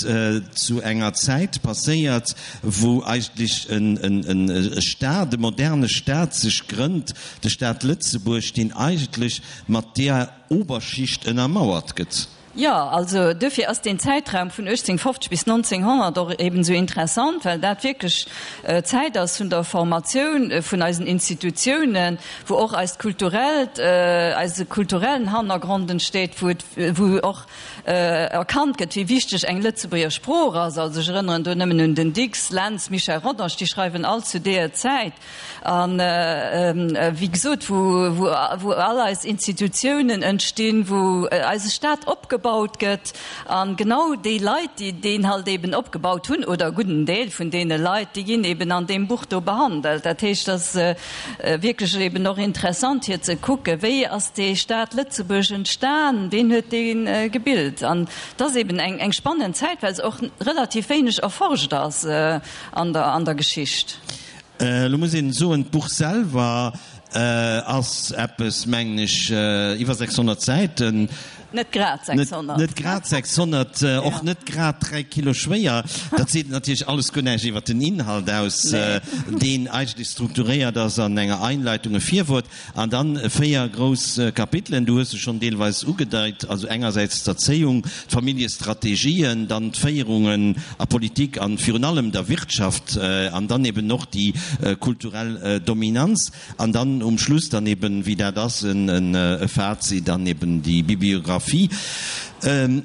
zu enger Zäit passéiert, wou eigentlech e Staat, e moderne Staat sech grënnt, de Staat Lëtzebuerg, deen eigentlech mat deer Oberschicht ënnermauert gëtt. Jo, also duerfir ass deen Zäitraum vun 1850 bis 1900 och eben esou interessant, well dat wierklech d'Zäit ass vun der Formatioun vun eisen Institutiounen, wou och eist kulturellt, eise kulturellen Hannergrond entsteet, wou et, wou och erkannt gëtt, wéi wichteg eng Lëtzebuerger Sprooch ass. Also ech erënneren do nëmmen un den Dicks, Lentz, Michel Rodange, déi schreiwen all zu deeër Zäit. An, wéi gesot, wou all eis Institutiounen entstinn, wou eise Staat opgebaut gëtt. A genau déi Leit, déi deen halt eben opgebaut hunn, oder e gudden Deel vun deene Leit, déi ginn eben an deem Buch do behandelt. Dat heescht, et ass wierklech eben och interessant, fir ze kucken, wéi ass dee Staat Lëtzebuerg entstan, ween huet dee gebilt. An et ass eben eng spannend Zäit, well se och relativ wéineg erforscht ass an der Geschicht. Elo muss een soen, d'Buch selwer ass eppes, mengen ech, iwwer 600 Säiten. Net grad 600. Net grad 600, och net grad 3 Kilo schwéier. Dat seet natierlech alles guer näischt iwwer den Inhalt aus, deen eigentlech strukturéiert ass an enger Einleitung, e Virwuert An dann 4 grouss Kapitelen, du hues se schonn deelweis ugedeit, also engersäits d'Erzéiung, d'Familljestrategien, dann d'Féierungen a Politik an virun allem der Wirtschaft an dann eben och déi kulturell Dominanz an dann um Schluss dann eben, wéi dat ass, e Fazit an eben déi Bibliographie.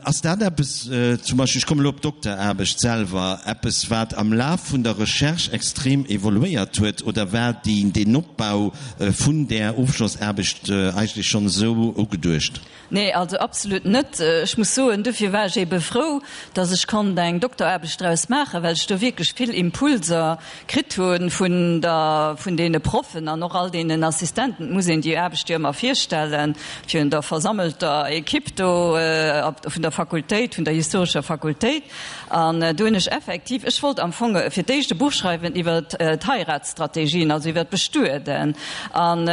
Ass dat eppes, zum Beispill, ech kommen elo op d'Dokteraarbecht selwer, eppes wat am Laf vun der Recherche extrem evoluéiert huet oder war deen Opbau vun där Ofschlossaarbecht eigentlech schonn esou ugeduecht? Nee, also absolut net. Ech muss soen, dofir war ech ebe frou, datt ech konnt eng Dokteraarbecht draus maachen, well ech do wierklech vill Impulser kritt hu vun der, vun deene Proffen an och all deenen Assistenten. Et muss een déi Aarbecht jo ëmmer virstellen virun der versammelter Equipe do vun der Fakultéit, vun der historescher Fakultéit. An do hunn ech effektiv, ech wollt am Fong fir d'éischt e Buch schreiwen iwwer d'Heiratsstrategien, also iwwer d'Bestueden. An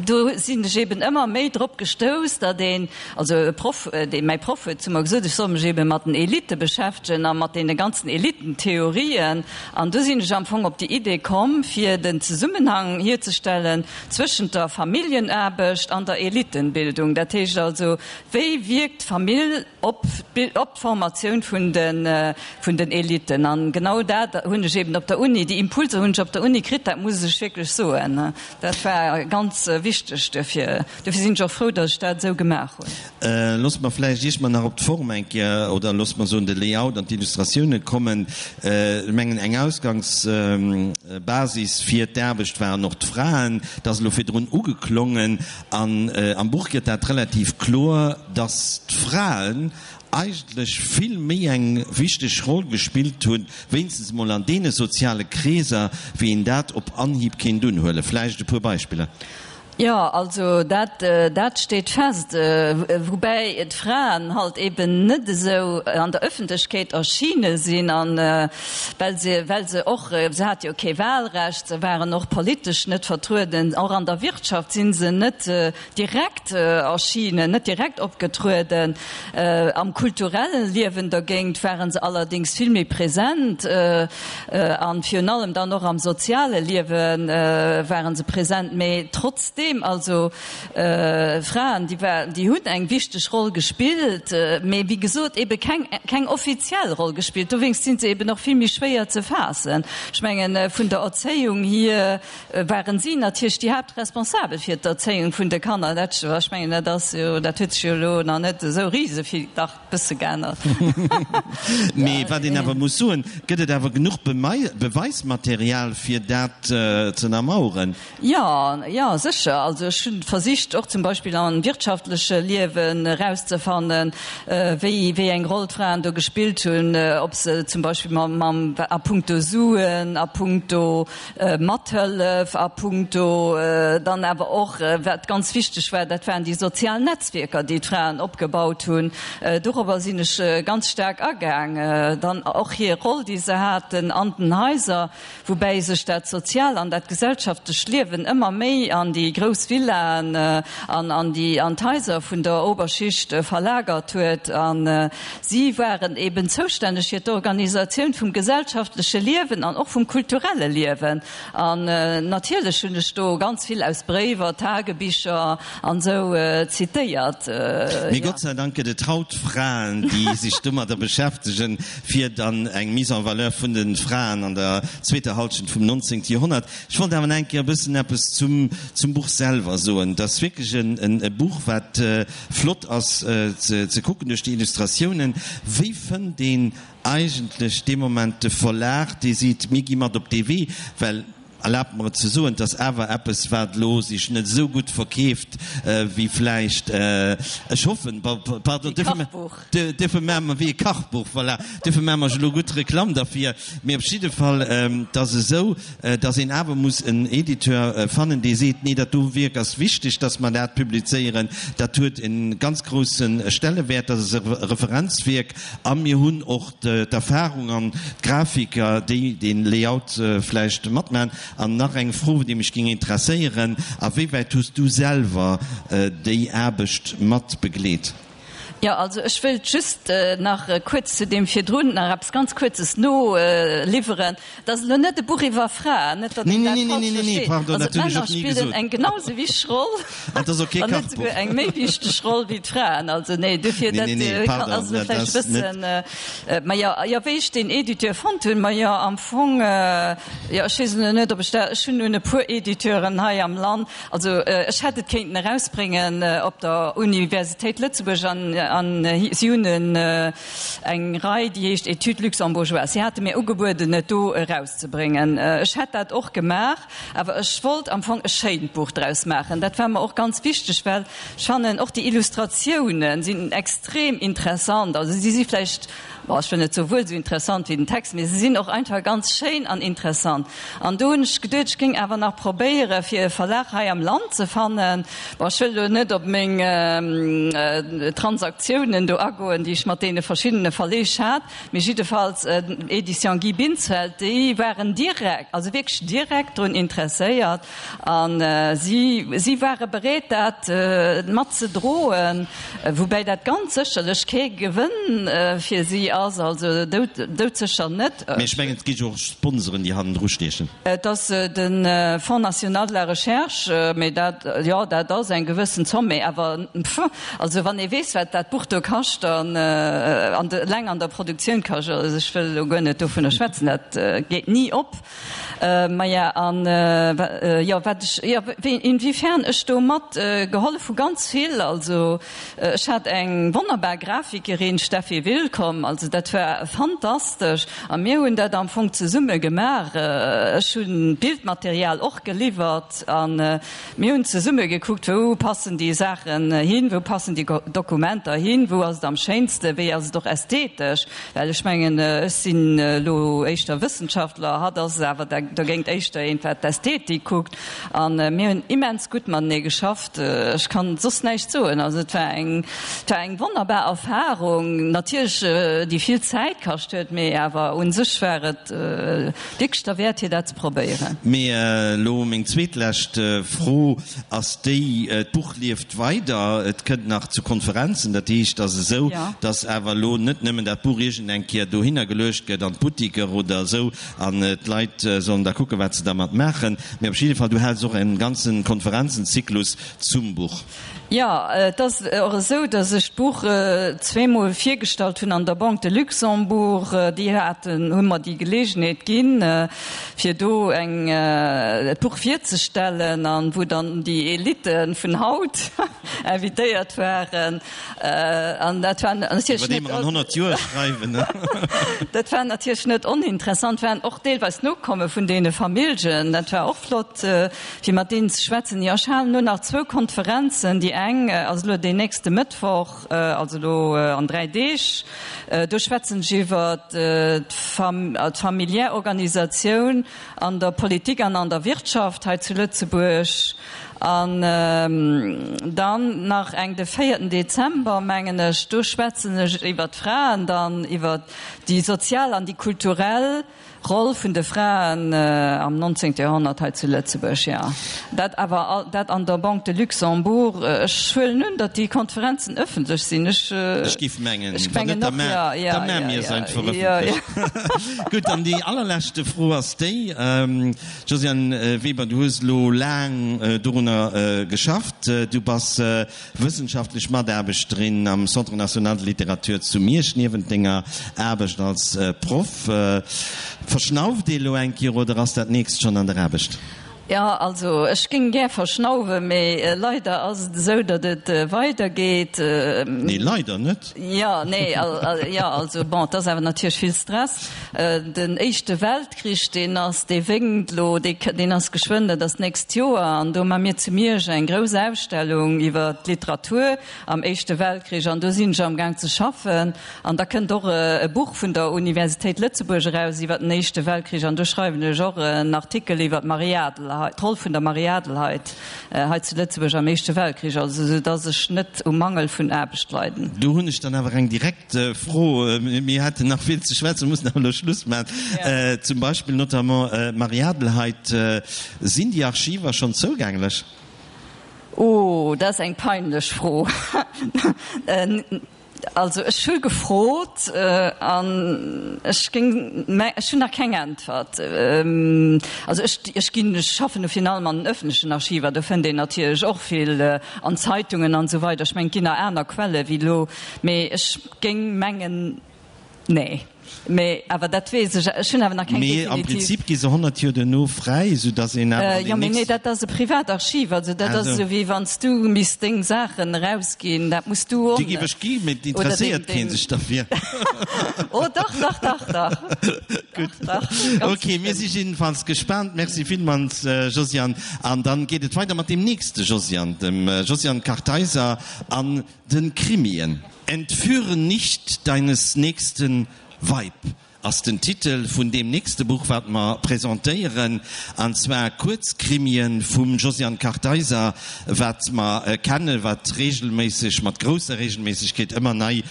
do sinn ech eben ëmmer méi drop gestouss, datt een, also e Proff, dee mäi Proff huet zu mer gesot, ech soll mech ebe mat den Elitte beschäftegen a mat deene ganzen Elittentheorien. An do sinn ech am Fong op déi Idee komm, fir den Zesummenhang hierzestellen zwëschent der Familljenaarbecht an der Elittenbildung. Dat heescht also, wéi wierkt d'Famill op d'Formatioun vun den Eliten. An genau dat hunn ech eben op der Uni, déi Impulser hunn ech op der Uni kritt, dat muss ech wierklech soen. Dat war ganz wichteg duerfir. Duerfir sinn ech och frou, datt ech dat esou gemaach hunn. Loosse mer vläicht, iech mer nach op d'Form eng Kéier, oder loosse mer soen de Layout an d'Illustratioune kommen. Ech mengen, eng Ausgangs. Basis fir d'Aarbecht waren och d'Fraen. Dat ass elo virdrun ugeklongen. An am Buch gëtt dat relativ kloer, dass d'Fraen eigentlech vill méi eng wichteg Roll gespillt hunn, wéinstens emol an deene soziale Kreeser, wéi een dat op Anhieb kéint unhuelen. Vläicht e puer Beispiller. Jo, also dat, dat steet fest. Woubäi d'Fraen halt eben net esou an der Öffentlechkeet erschine sinn, an well se, well se och, se hate jo kee Wahlrecht, se waren och politesch net vertrueden, och an der Wirtschaft si se net direkt erschinen, net direkt opgetrueden. Am kulturellen Liewen dergéint ware se allerdéngs vill méi present an virun allem dann och am soziale Liewe ware se present. Mee trotzdeem, also Fraen, déi war, déi hunn eng wichteg Roll gespillt, mee wéi gesot ebe keng, keng offiziell Roll gespillt. Dowéinst si se eben och vill méi schwéier ze faassen. Ech mengen, vun der Erzéiung hier waren si natierlech déi Haaptresponsabel fir d'Erzéiung vun de Kanner. Dat, ech mengen, dat ass jo, dat huet sech jo elo nach net esou risevill, dach e bësse geännert. Mee wat een awer muss soen, gëtt et awer genuch Beweismaterial, fir dat ze ënnermaueren? Jo, jo, sécher. Also ech hunn versicht och zum Beispill am wirtschaftleche Liewen erauszefannen, wéi, wéi eng Roll d'Fraen do gespillt hunn, ob se zum Beispill mam, mam, a puncto Suen, a puncto Mathëllef a puncto dann awer och, wat ganz wichteg war, dat waren déi sozial Netzwierker, déi d'Fraen opgebaut hunn. Dorobber sinn ech ganz staark agaang. Dann och hir Roll, déi se haten an den Haiser, woubäi sech dat sozial an dat gesellschaftlecht Liewen ëmmer méi an déi grouss Villaen an an déi an d'Haiser vun der Oberschicht verlagert huet. A si waren eben zoustänneg fir d'Organisatioun vum gesellschaftleche Liewen an och vum kulturelle Liewen. An natierlech hunn ech do ganz vill aus Bréiwer, Tagebicher an esou zitéiert. Mee Gott sei Dank gëtt et haut Fraen, déi sech domadder beschäftegen, fir dann eng Mise en valeur vun de Fraen an der zweeter Halschent vum 19. Joerhonnert. Ech wollt awer nach eng Kéier e bëssen eppes zum, zum Buch selwer soen. Et ass wierklech en, e Buch, wat flott ass ze, ze kucken duerch déi Illustratiounen. Wéi fënnt een eigentlech dee Moment de Verlag, dee seet, mir gi mat op dee Wee? Well, erlaabt mer et ze soen, et ass awer eppes, wat elo sech net esou gutt verkeeft wéi vläicht, ech hoffen, pardon, duerfir maache mer, wéi e Kachbuch, voilà, duerfir maache mer elo gutt Reklamm derfir. Mee op jidde Fall, et ass esou, datt een awer muss en Editeur fannen, dee seet, nee, dat do Wierk ass wichteg, datt mer dat publizéieren, dat huet e ganz grousse Stellewäert, dat ass e Referenzwierk a mir hunn och d'Erfahrung an d'Grafiker, déi dee Layout vläicht matmachen. An nach eng Fro, déi mech géing interesséieren, A wéi wäit hues du selwer déi Aarbecht mat begleet? Jo, also ech wëilt just nach kuerz zu deem virdrun nach eppes ganz Kuerzes noliwweren. Et ass elo net e Buch iwwer Fraen, net datt een dat falsch versteet. Also d'Männer spillen eng genau sou wichteg Roll, wann net souguer eng méi wichteg Roll wéi d'Fraen. Also nee, dofir dat ass elo vläicht e bëssen. Mä jo, jo, wéi ech deen Editeur fonnt hunn, ma jo am Fong, jo ech weess elo net, ob ech dat, ech hunn un e puer Editeuren hei am Land, also ech hätt et kéinten erausbréngen op der Universitéit Lëtzebuerg an an si hunn en eng Rei, déi heescht Études luxembourgeoises. Si hate mir ugebueden, et do erauszebréngen. Ech hätt dat och gemaach, awer ech wollt am Fong e schéint Buch draus maachen. Dat war mer och ganz wichteg, well ech fannen, och déi Illustratiounen sinn extrem interessant. Also si si vläicht, bon, ech wëll net soe wuel esou interessant wéi den Text, mee se sinn och einfach ganz schéin an interessant. An do hunn ech geduet, ech géing awer nach probéiere fir e Verlag hei am Land ze fannen. Bon, ech wëll elo net op meng Transaktiounen do agoen, déi ech mat deene verschiddene Verleeg hat, mee jiddefalls Editions Guy Binsfeld, déi waren direkt, also wierklech direkt drun interesséiert a si, si ware bereet dat mat ze droen, woubäi dat ganz sécherlech kee Gewënn fir si ass, also doudsécher net. Mee ech mengen, et gi jo och Sponsoren, déi hannendru stiechen. Et ass de Fonds national de la recherche, mee dat, jo, dat ass eng gewëssen Zomm, mee awer, pff, also wann ee weess, wat dat. dat Buch do kascht an eleng an der Produktioun kascht, also ech wëll elo guer net dovunner schwätzen, dat geet ni op. Maja, an jo, wat ech, jo, wéi, inwiefern ech do mat gehollef hu, ganz vill. Also ech hat eng wonnerbar Grafikerin, Steffi Willkomm, also dat war fantastesch a mir hunn dat am Fong zesumme gemaach. Ech hunn d'Bildmaterial och geliwwert an mir hunn zesumme gekuckt, wou passen déi Saachen hin, wou passen déi Dokumenter hin, wou ass et am schéinsten, wéi ass et och ästhetesch. Well ech mengen, ech sinn elo éischter Wëssenschaftler, hatt ass awer dogéint éischter eent, wat d'Ästhetik kuckt. A mir hunn immens gutt matenee geschafft. Ech kann soss näischt soen. Also et war eng, et war eng wonnerbar Erfarung, natierlech déi vill Zäit kascht huet, mee awer u sech war et wierklech derwäert, fir dat ze probéieren. Mee elo meng zweetlescht Fro ass déi, D'Buch lieft weider, et kënnt nach zu Konferenzen. Dat heescht, et ass esou, datt awer elo net nëmmen dat Buch iergend eng Kéier dohinner geluecht gëtt an d'Buttiker oder esou an d'Leit sollen da kucken, wat se dermat maachen, mee op jidde Fall, du häls och e ganze Konferenzenzyklus zum Buch. Jo, et ass och esou, datt ech d'Buch zweemol virgestallt hunn an der Banque de Luxembourg. Déi haten, hu mer déi Geleegenheet ginn, fir do eng, d'Buch virzestellen an wou dann déi Elite vun haut invitéiert waren. An dat war natierlech net. Iwwer déi mer an 100 Joer schreiwen. Dat war natierlech net oninteressant, waren och deelweis Nokomme vun deene Familljen. Dat war och flott. Fir mat deenen ze schwätzen. Jo, ech halen elo nach zwou Konferenzen. Déi eng ass elo deen nächste Mëttwoch, also elo an 3 Deeg. Do schwätzen ech iwwer d'familiär Organisatioun an der Politik an an der Wirtschaft hei zu Lëtzebuerg. An dann nach eng de véierten Dezember, mengen ech, do schwätzen ech iwwer d'Fraen dann, iwwer déi sozial an déi kulturell Roll vun de Fraen am 19. Joerhonnert hei zu Lëtzebuerg, jo. Dat awer dat an der Banque de Luxembourg. Ech huelen un, datt déi Konferenzen ëffentlech sinn. Ech, Ech géif mengen, ech wann net, mengen da och, jo, jo, da maa mir se einfach ëffentlech. Gutt, an déi allerleschte Fro ass déi, Josiane Weber, du hues elo laang dorunner geschafft, du bass Wëssenschaftlech Mataarbechterin am Centre national de littérature zu Miersch, niewent denger Aarbecht als Proff. Verschnauft ee lo eng Kéier oder ass dat nächst schonn an der Aarbecht? Jo, also ech géing gär verschnauwen, mee leider ass et esou, datt et weidergeet. Nee, leider net. Jo, nee, jo, also bon, et ass awer natierlech vill Stress. Den Éischte Weltkrich, deen ass, dee wénkt elo, deen ass geschwënn, dat ass d'nächst Joer, an do ma mir zu Miersch eng grouss Ausstellung iwwer d'Literatur am Éischte Weltkrich, an do sinn ech amgaang ze schaffen. An da kënnt och e Buch vun der Universitéit Lëtzebuerg eraus iwwer den Éischte Weltkrich, an do schreiwen ech och en Artikel iwwer d'Marie Adelheid, d'Roll vun der Marie Adelheid hei zu Lëtzebuerg am Éischte Weltkrich, also esou dass ech net um Mangel vun Aarbecht leiden. Do hunn ech dann awer eng direkt Fro, mir hätten nach vill ze schwätzen, mussen awer elo Schluss maachen. Zum Beispill notamment d'Marie Adelheid, sinn déi Archiver schonn zougänglech? Oh, dat ass eng peinlech Fro. Also ech hu gefrot an ech géing, mä ech hunn nach keng Äntwert. Also ech, ech ginn, ech schaffen jo virun allem an den öffentlechen Archiver, do fënnt een natierlech och vill an Zeitungen an esou weider. Ech mengen, et ginn nach aner Quelle wéi elo, mee ech géing mengen, nee. Mee awer dat weess ech, ech hunn awer nach keng Mee am definitiv. Prinzip gi se 100 Joer duerno fräi, esou datt een awer an Jo, den mee nee, nächsten. dat ass e Privatarchiv, also dat ass esou wéi wann s du misst deng Saachen erausginn, dat muss du och Déi géif ech gi, mee et oder deng, interesséiert kee deng. sech derfir. Oh dach, dach, dach, dach. Gutt. Dach, dach, ganz Ok, mir si bestimmt. jiddefalls gespaant. Merci villmools, Josiane. An dann geet et weider mat deem nächste Josiane, dem Josiane Kartheiser an de Krimien. Entführe nicht deines Nächsten Weib ass den Titel vun deem nächste Buch, wat mer presentéieren, an zwar Kuerzkrimien vum Josiane Kartheiser, wat mer kennen, wat regelméisseg, mat grousser Regelméissegkeet ëmmer nei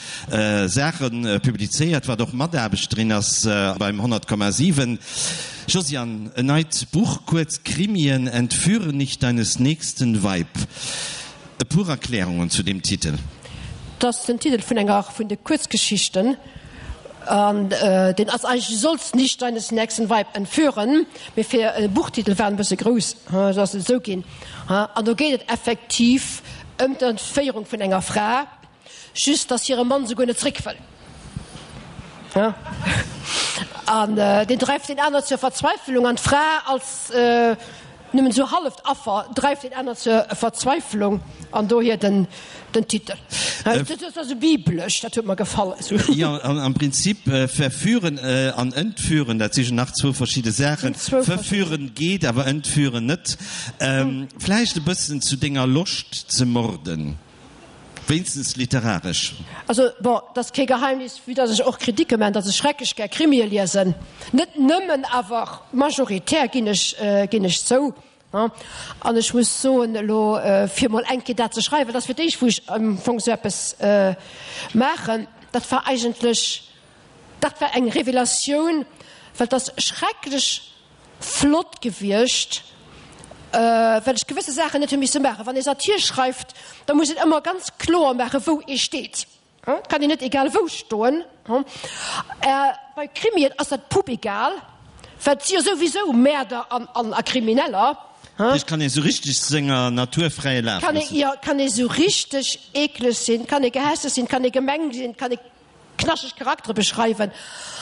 Saache publizéiert, wat och Mataarbechterin ass beim 100,7. Josiane, en neit Buch, Kuerzkrimien, Entführe nicht deines Nächsten Weib. E puer Erklärungen zu deem Titel. Et ass den Titel vun enger vun de Kuerzgeschichten an deen ass eigentlech Du sollst nicht deines nächsten Weib entführen, mee fir e Buchtitel war en e bësse grouss, sou ass et esou ginn. An do geet et effektiv ëm d'Entféierung vun enger Fra. Just dass hire Mann souguer net zréck wëll. An deen dreift deen aner zur Verzweifelung an d'Fra als nëmmen esou halleft Affer dreift deen aner zur Verzweifelung an dohier den den Titel. Dat ass esou biblesch, dat huet mer gefall. Jo, am Prinzip verführen an entführen, dat si jo nach zwou verschidde Saachen. Verführen geet, awer entführen net. Vläicht e bëssen zu denger Loscht ze morden. Wéinstens literaresch. Also, bon, et ass kee Geheimnis, vue dass ech och Kritike man, dass ech schrecklech gär Krimie liesen. Net nëmmen, awer majoritär, ginn ech, ginn ech zou. An ech muss soen, elo fir mol eng Kéier dat ze schreiwen, dat ass fir d'éischt, wou ech am Fong esou eppes maachen, dat war eigentlech, dat war eng Revelatioun, well et ass schrecklech flott gewiescht, well ech gewësse Saachen net hu misse maachen. Wann ee Satir schreift, da muss een ëmmer ganz kloer maachen, wou ee steet. Et kann een net egal wou stoen. Bei Krimien ass dat pupegal, well et si jo souwisou Mäerder an a Krimineller. Et kann ee sou richteg senger Natur fräie Laf loossen. Jo, kann ee sou richteg eekleg sinn, kann ee gehässeg sinn, kann ee gemeng sinn, kann ee. Knaschteg Charaktere beschreiwen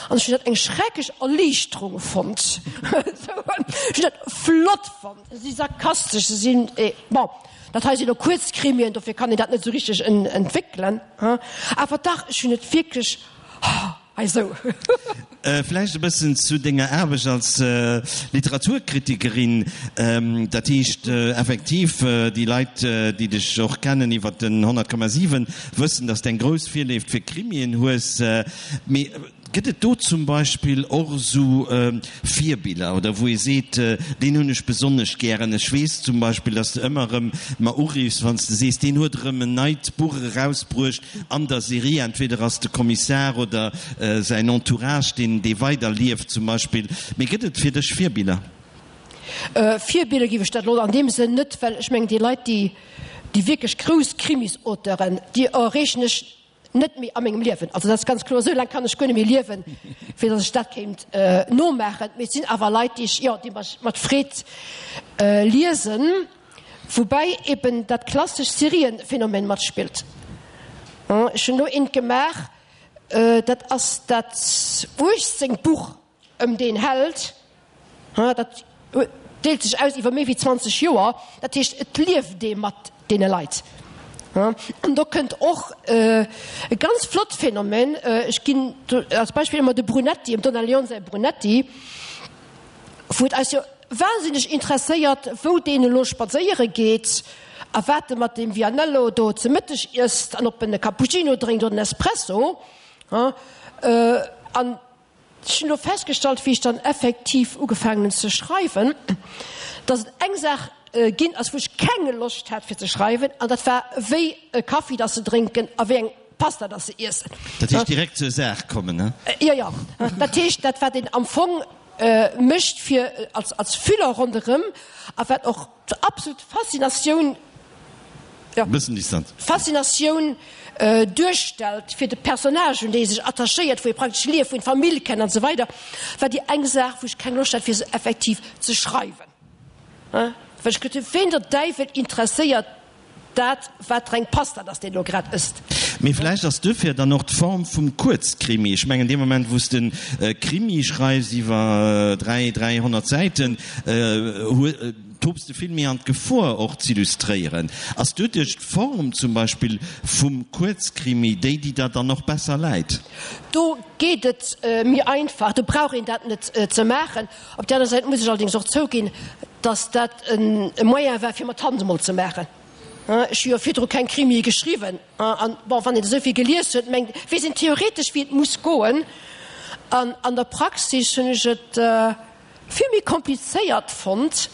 an ech hunn dat eng schrecklech Erliichterung fonnt. Ech hunn dat flott fonnt. Se si sarkastesch, se sinn, bon, dat hei sinn elo Kuerzkrimien, dofir kann een dat net esou richteg entwéckelen, awer dach, ech hunn et wierklech, hei esou. Vläicht e bëssen zu denger Aarbecht als Literaturkritikerin. Dat heescht effektiv, déi Leit, déi dech och kennen iwwer den 100,7, wëssen, datt s de eng grouss Virléift fir Krimien hues. Mee gëtt et do zum Beispill och esou Virbiller oder wou ee seet, deen hunn ech besonnesch gären? Ech weess zum Beispill, datt s de ëmmer erëm mer uriffs, wann s de sees, deen huet erëm en neit Buch erausbruecht an der Serie. Entweder ass de Kommissar oder säin Entourage, deen dee weider lieft zum Beispill. Mee gëtt et fir dech Virbiller? Virbiller géif ech dat elo an deem Sënn net, well ech mengen déi Leit, déi déi wierklech grouss Krimis-Auteuren, déi erreechen ech net méi a mengem Liewen. Also dat ass ganz kloer, esou laang kann ech guer net méi liewen, fir datt ech dat kéint nomaachen. Mee et sinn awer Leit, déi ech, jo, déi ech mat Freed liesen. Woubäi eben dat klassescht Serienphänomen matspillt. Ech hunn elo eent gemaach, dat ass dat uechtzéngt Buch ëm deen Held. Dat deelt sech aus iwwer méi wéi 20 Joer. Dat heescht, et lieft ee mat deene Leit. An do kënnt och e ganz flott Phänomen, ech ginn als Beispill ëmmer de Brunetti, dem Donna Leon säi Brunetti, wou et eis jo wahnsinneg interesséiert, wou deen elo spadséiere geet a wat e mat deem Vianello do ze Mëtteg iesst an ob en e Cappuccino drénkt oder en Espresso. An ech hunn elo festgestallt, wéi ech dann effektiv ugefaangen hunn ze schreiwen, dass et eng Saach ginn ass, wou ech keng Loscht hat fir ze schreiwen, an dat war, wéi e Kaffi dass se drénken a wéi eng Pasta dass se iessen. Dat heescht direkt zur Saach kommen, ne? Jo, jo. Dat heescht, dat wat een am Fong mécht fir als als Füller ronderëm a wat och d'absolut Faszinatioun, jo, Bëssen Distanz. Faszinatioun duerstellt fir de Personnage, un dee ee sech attachéiert, wou ee praktesch lieft, wou een d'Famill kennt an esou weider, war déi eng Saach, wou ech keng Loscht hat fir se effektiv ze schreiwen. Well ech geduet hunn, ween der Däiwel interesséiert Dat, wat reng Pasta, dass deen elo grad ësst. Mee vläicht ass duerfir dann och d'Form vum Kuerzkrimi, ech mengen, dee Moment, wou s de e Krimi schreifs iwwer 3, 300 Säiten, tobs de vill méi an d'Gefor, och z'illustréieren. Ass doduerch d'Form zum Beispill vum Kuerzkrimi déi, déi der dann och besser läit? Do geet et méi einfach, do brauch een dat net ze maachen. Op där aner Säit muss ech allerdéngs och zouginn, dass dat e Moyen war, fir mer d'Hand emol ze maachen. Ech hu jo virdru keng Krimie geschriwwen. An, bon, wann een esou vill gelies huet, mengt, weess een theoretesch, wéi et muss goen. An an der Praxis hunn ech et vill méi komplizéiert fonnt,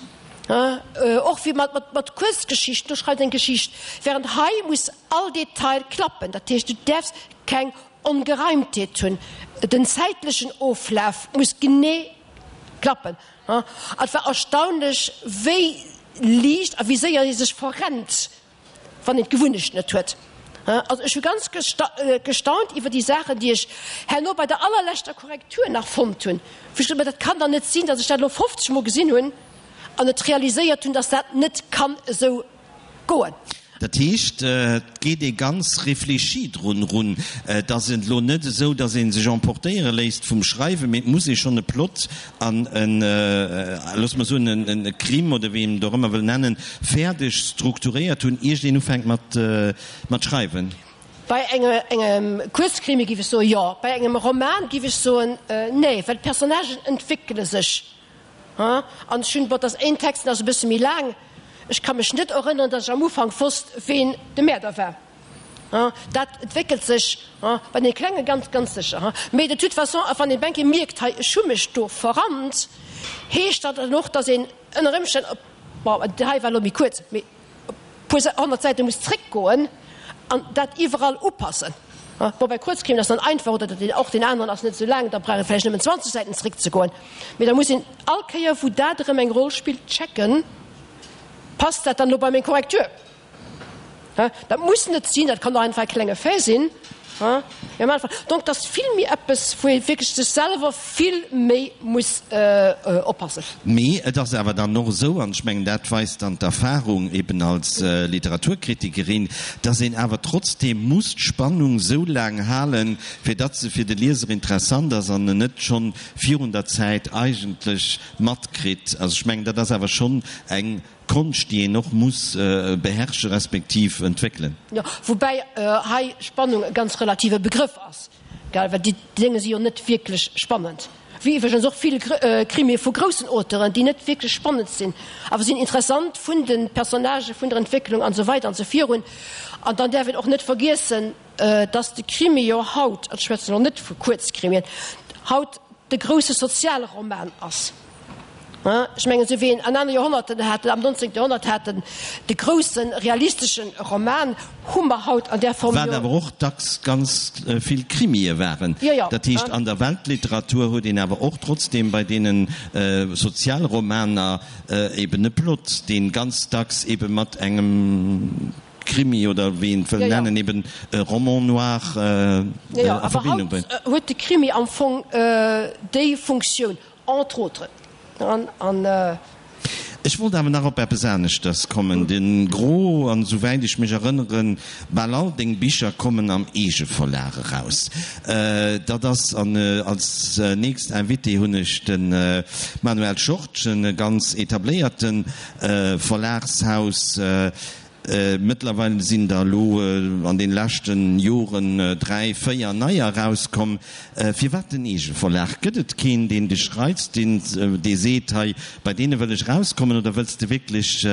och wéi mat, mat Kuerzgeschichten, do schreift een eng Geschicht, während hei muss all Detail klappen. Dat heescht, du däerfs keng Ongereimtheet hunn. Den zäitlechen Oflaf muss genee klappen. An et war erstaunlech, wéi liicht a wéi séier ee sech verrennt, wann een d'Gewunnecht net huet. Also ech hu ganz gestaunt iwwer déi Saachen, déi ech herno bei der allerleschter Korrektur nach fonnt hunn, wou ech gesot hunn, dat kann dann net sinn, datt ech dat elo 50 Mol gesinn hunn an net realiséiert hunn, datt dat net kann esou goen. Dat heescht, et geet ee ganz réfléchi drun erun. Et ass elo net esou, datt ee sech emportéiere léisst vum Schreiwen, mee et muss ee schonn e Plot an en, loosse mer soen, e Crime oder wéi een et och ëmmer wëll nennen, fäerdeg strukturéiert hunn, iert een ufänkt mat schreiwen. Bei engem Kuerzkrimi géif ech soen, jo. Bei engem Roman géif ech soen, nee, well d'Personnagen entwéckele sech. An ech hunn, bon, et ass een Text, deen ass e bësse méi laang, ech ka mech net erënneren, datt ech am Ufank wosst, ween de Mäerder war. Dat entwéckelt sech bei deene Klenge ganz, ganz sécher. Mee de toute façon, a wann een eng Kéier mierkt, hei, ech hu mech do verrannt, heescht dat dann och, datt een ënner Ëmstänn op, bon, hei war elo méi kuerz, mee e puer 100 Säite muss zréckgoen an dat iwwerall upassen. Bon, bei Kuerzkrimen ass dann einfach, oder den, och deen aneren ass net esou laang, da brauch ee vläicht nëmmen 20 Säiten zréckzegoen. Mee da muss een all Kéier, wou dat erëm eng Roll spillt, checken, Passt dat dann elo bei meng Korrektur? Dat muss net sinn, dat kann och einfach e klenge Fait sinn. Donc, et ass vill méi eppes, wou ee wierklech sech selwer vill méi muss oppassen. Mee et ass awer dann och esou, an ech mengen, dat weist dann d'Erfahrung eben als Literaturkritikerin, dass een awer trotzdeem muss d'Spannung esou laang halen, fir datt se fir de Lieser interessant ass an en net schonn virun der Zäit eigentlech matkritt. Also ech mengen, dat ass awer schonn eng Konscht, déi een och muss beherrsche respektiv entwéckelen. Jo, woubäi hei Spannung e ganz relative Begrëff ass, gell, well déi Dénge si jo net wierklech spannend, wéi iwwregens och vill Krimie vu groussen Auteuren, déi net wierklech spannend sinn, awer sinn interessant vun de Personnagen, vun der Entwécklung an esou weider an esou virun. An dann däerf een och net vergiessen, dass de Krimi jo haut, an ech schwätzen elo net vu Kuerzkrimien, haut de grousse Sozialroman ass. Ech mengen, esou wéi een an aner Joerhonnerten haten, am 19. Joerhonnert haten, de grousse realistesche Roman, hu mer haut an där Form jo. Wat awer och dacks ganz vill Krimie waren. Jo, jo. Dat heescht, an der Weltliteratur huet een awer och trotzdeem bei deene Sozialromaner eben e Plot, dee ganz dacks ebe mat engem Krimi oder wéi een et wëll nennen, eben e Roman noir a Verbindung bréngt. Jo, awer haut huet de Krimi am Fong déi Funktioun. Entre autres an. Ech wollt awer nach op eppes aneschters kommen. De Gros, an esouwäit ech mech erënneren, bal all deng Bicher kommen am Eegeverlag eraus. Dat ass, an als nächst Invité hunn ech de Manuel Schortgen, e ganz etabléierte Verlagshaus. Mëttlerweil sinn der elo an den leschten Joren 3, 4 neier erauskomm. Firwat den Eegeverlag? Gëtt et keen, deen dech reizt, deen dee seet, hei bei deene wëll ech erauskommen, oder wëlls de wierklech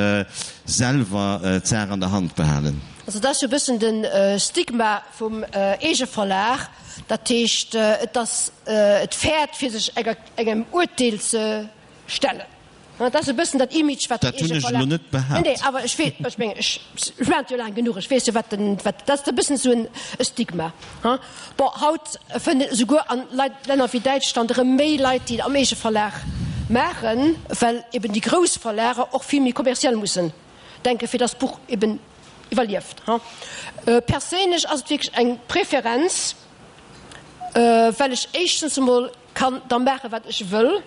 selwer d'Saach an der Hand behalen? Also dat ass jo e bëssen de Stigma vum Eegeverlag. Dat heescht, et ass, et fäert fir sech engem Urteel ze stellen. Dat ass e bëssen dat Image, wat den Dat hunn ech elo net behaapt. Nee, awer ech weess, ech mengen, ech maachen et jo laang genuch, ech weess jo, wat den, wat, dat ass e bëssen esou en Stigma, hein. Bon, haut fënnt een esouguer an Leit, Länner wéi Däitschland erëm méi Leit, déi et am Eegeverlag maachen, well eben déi grouss Verlager och vill méi kommerziell mussen denken, fir dass d'Buch eben iwwerlieft, hein. Perséinlech ass et wierklech eng Preferenz, well ech éischtens emol kann da maachen, wat ech wëll.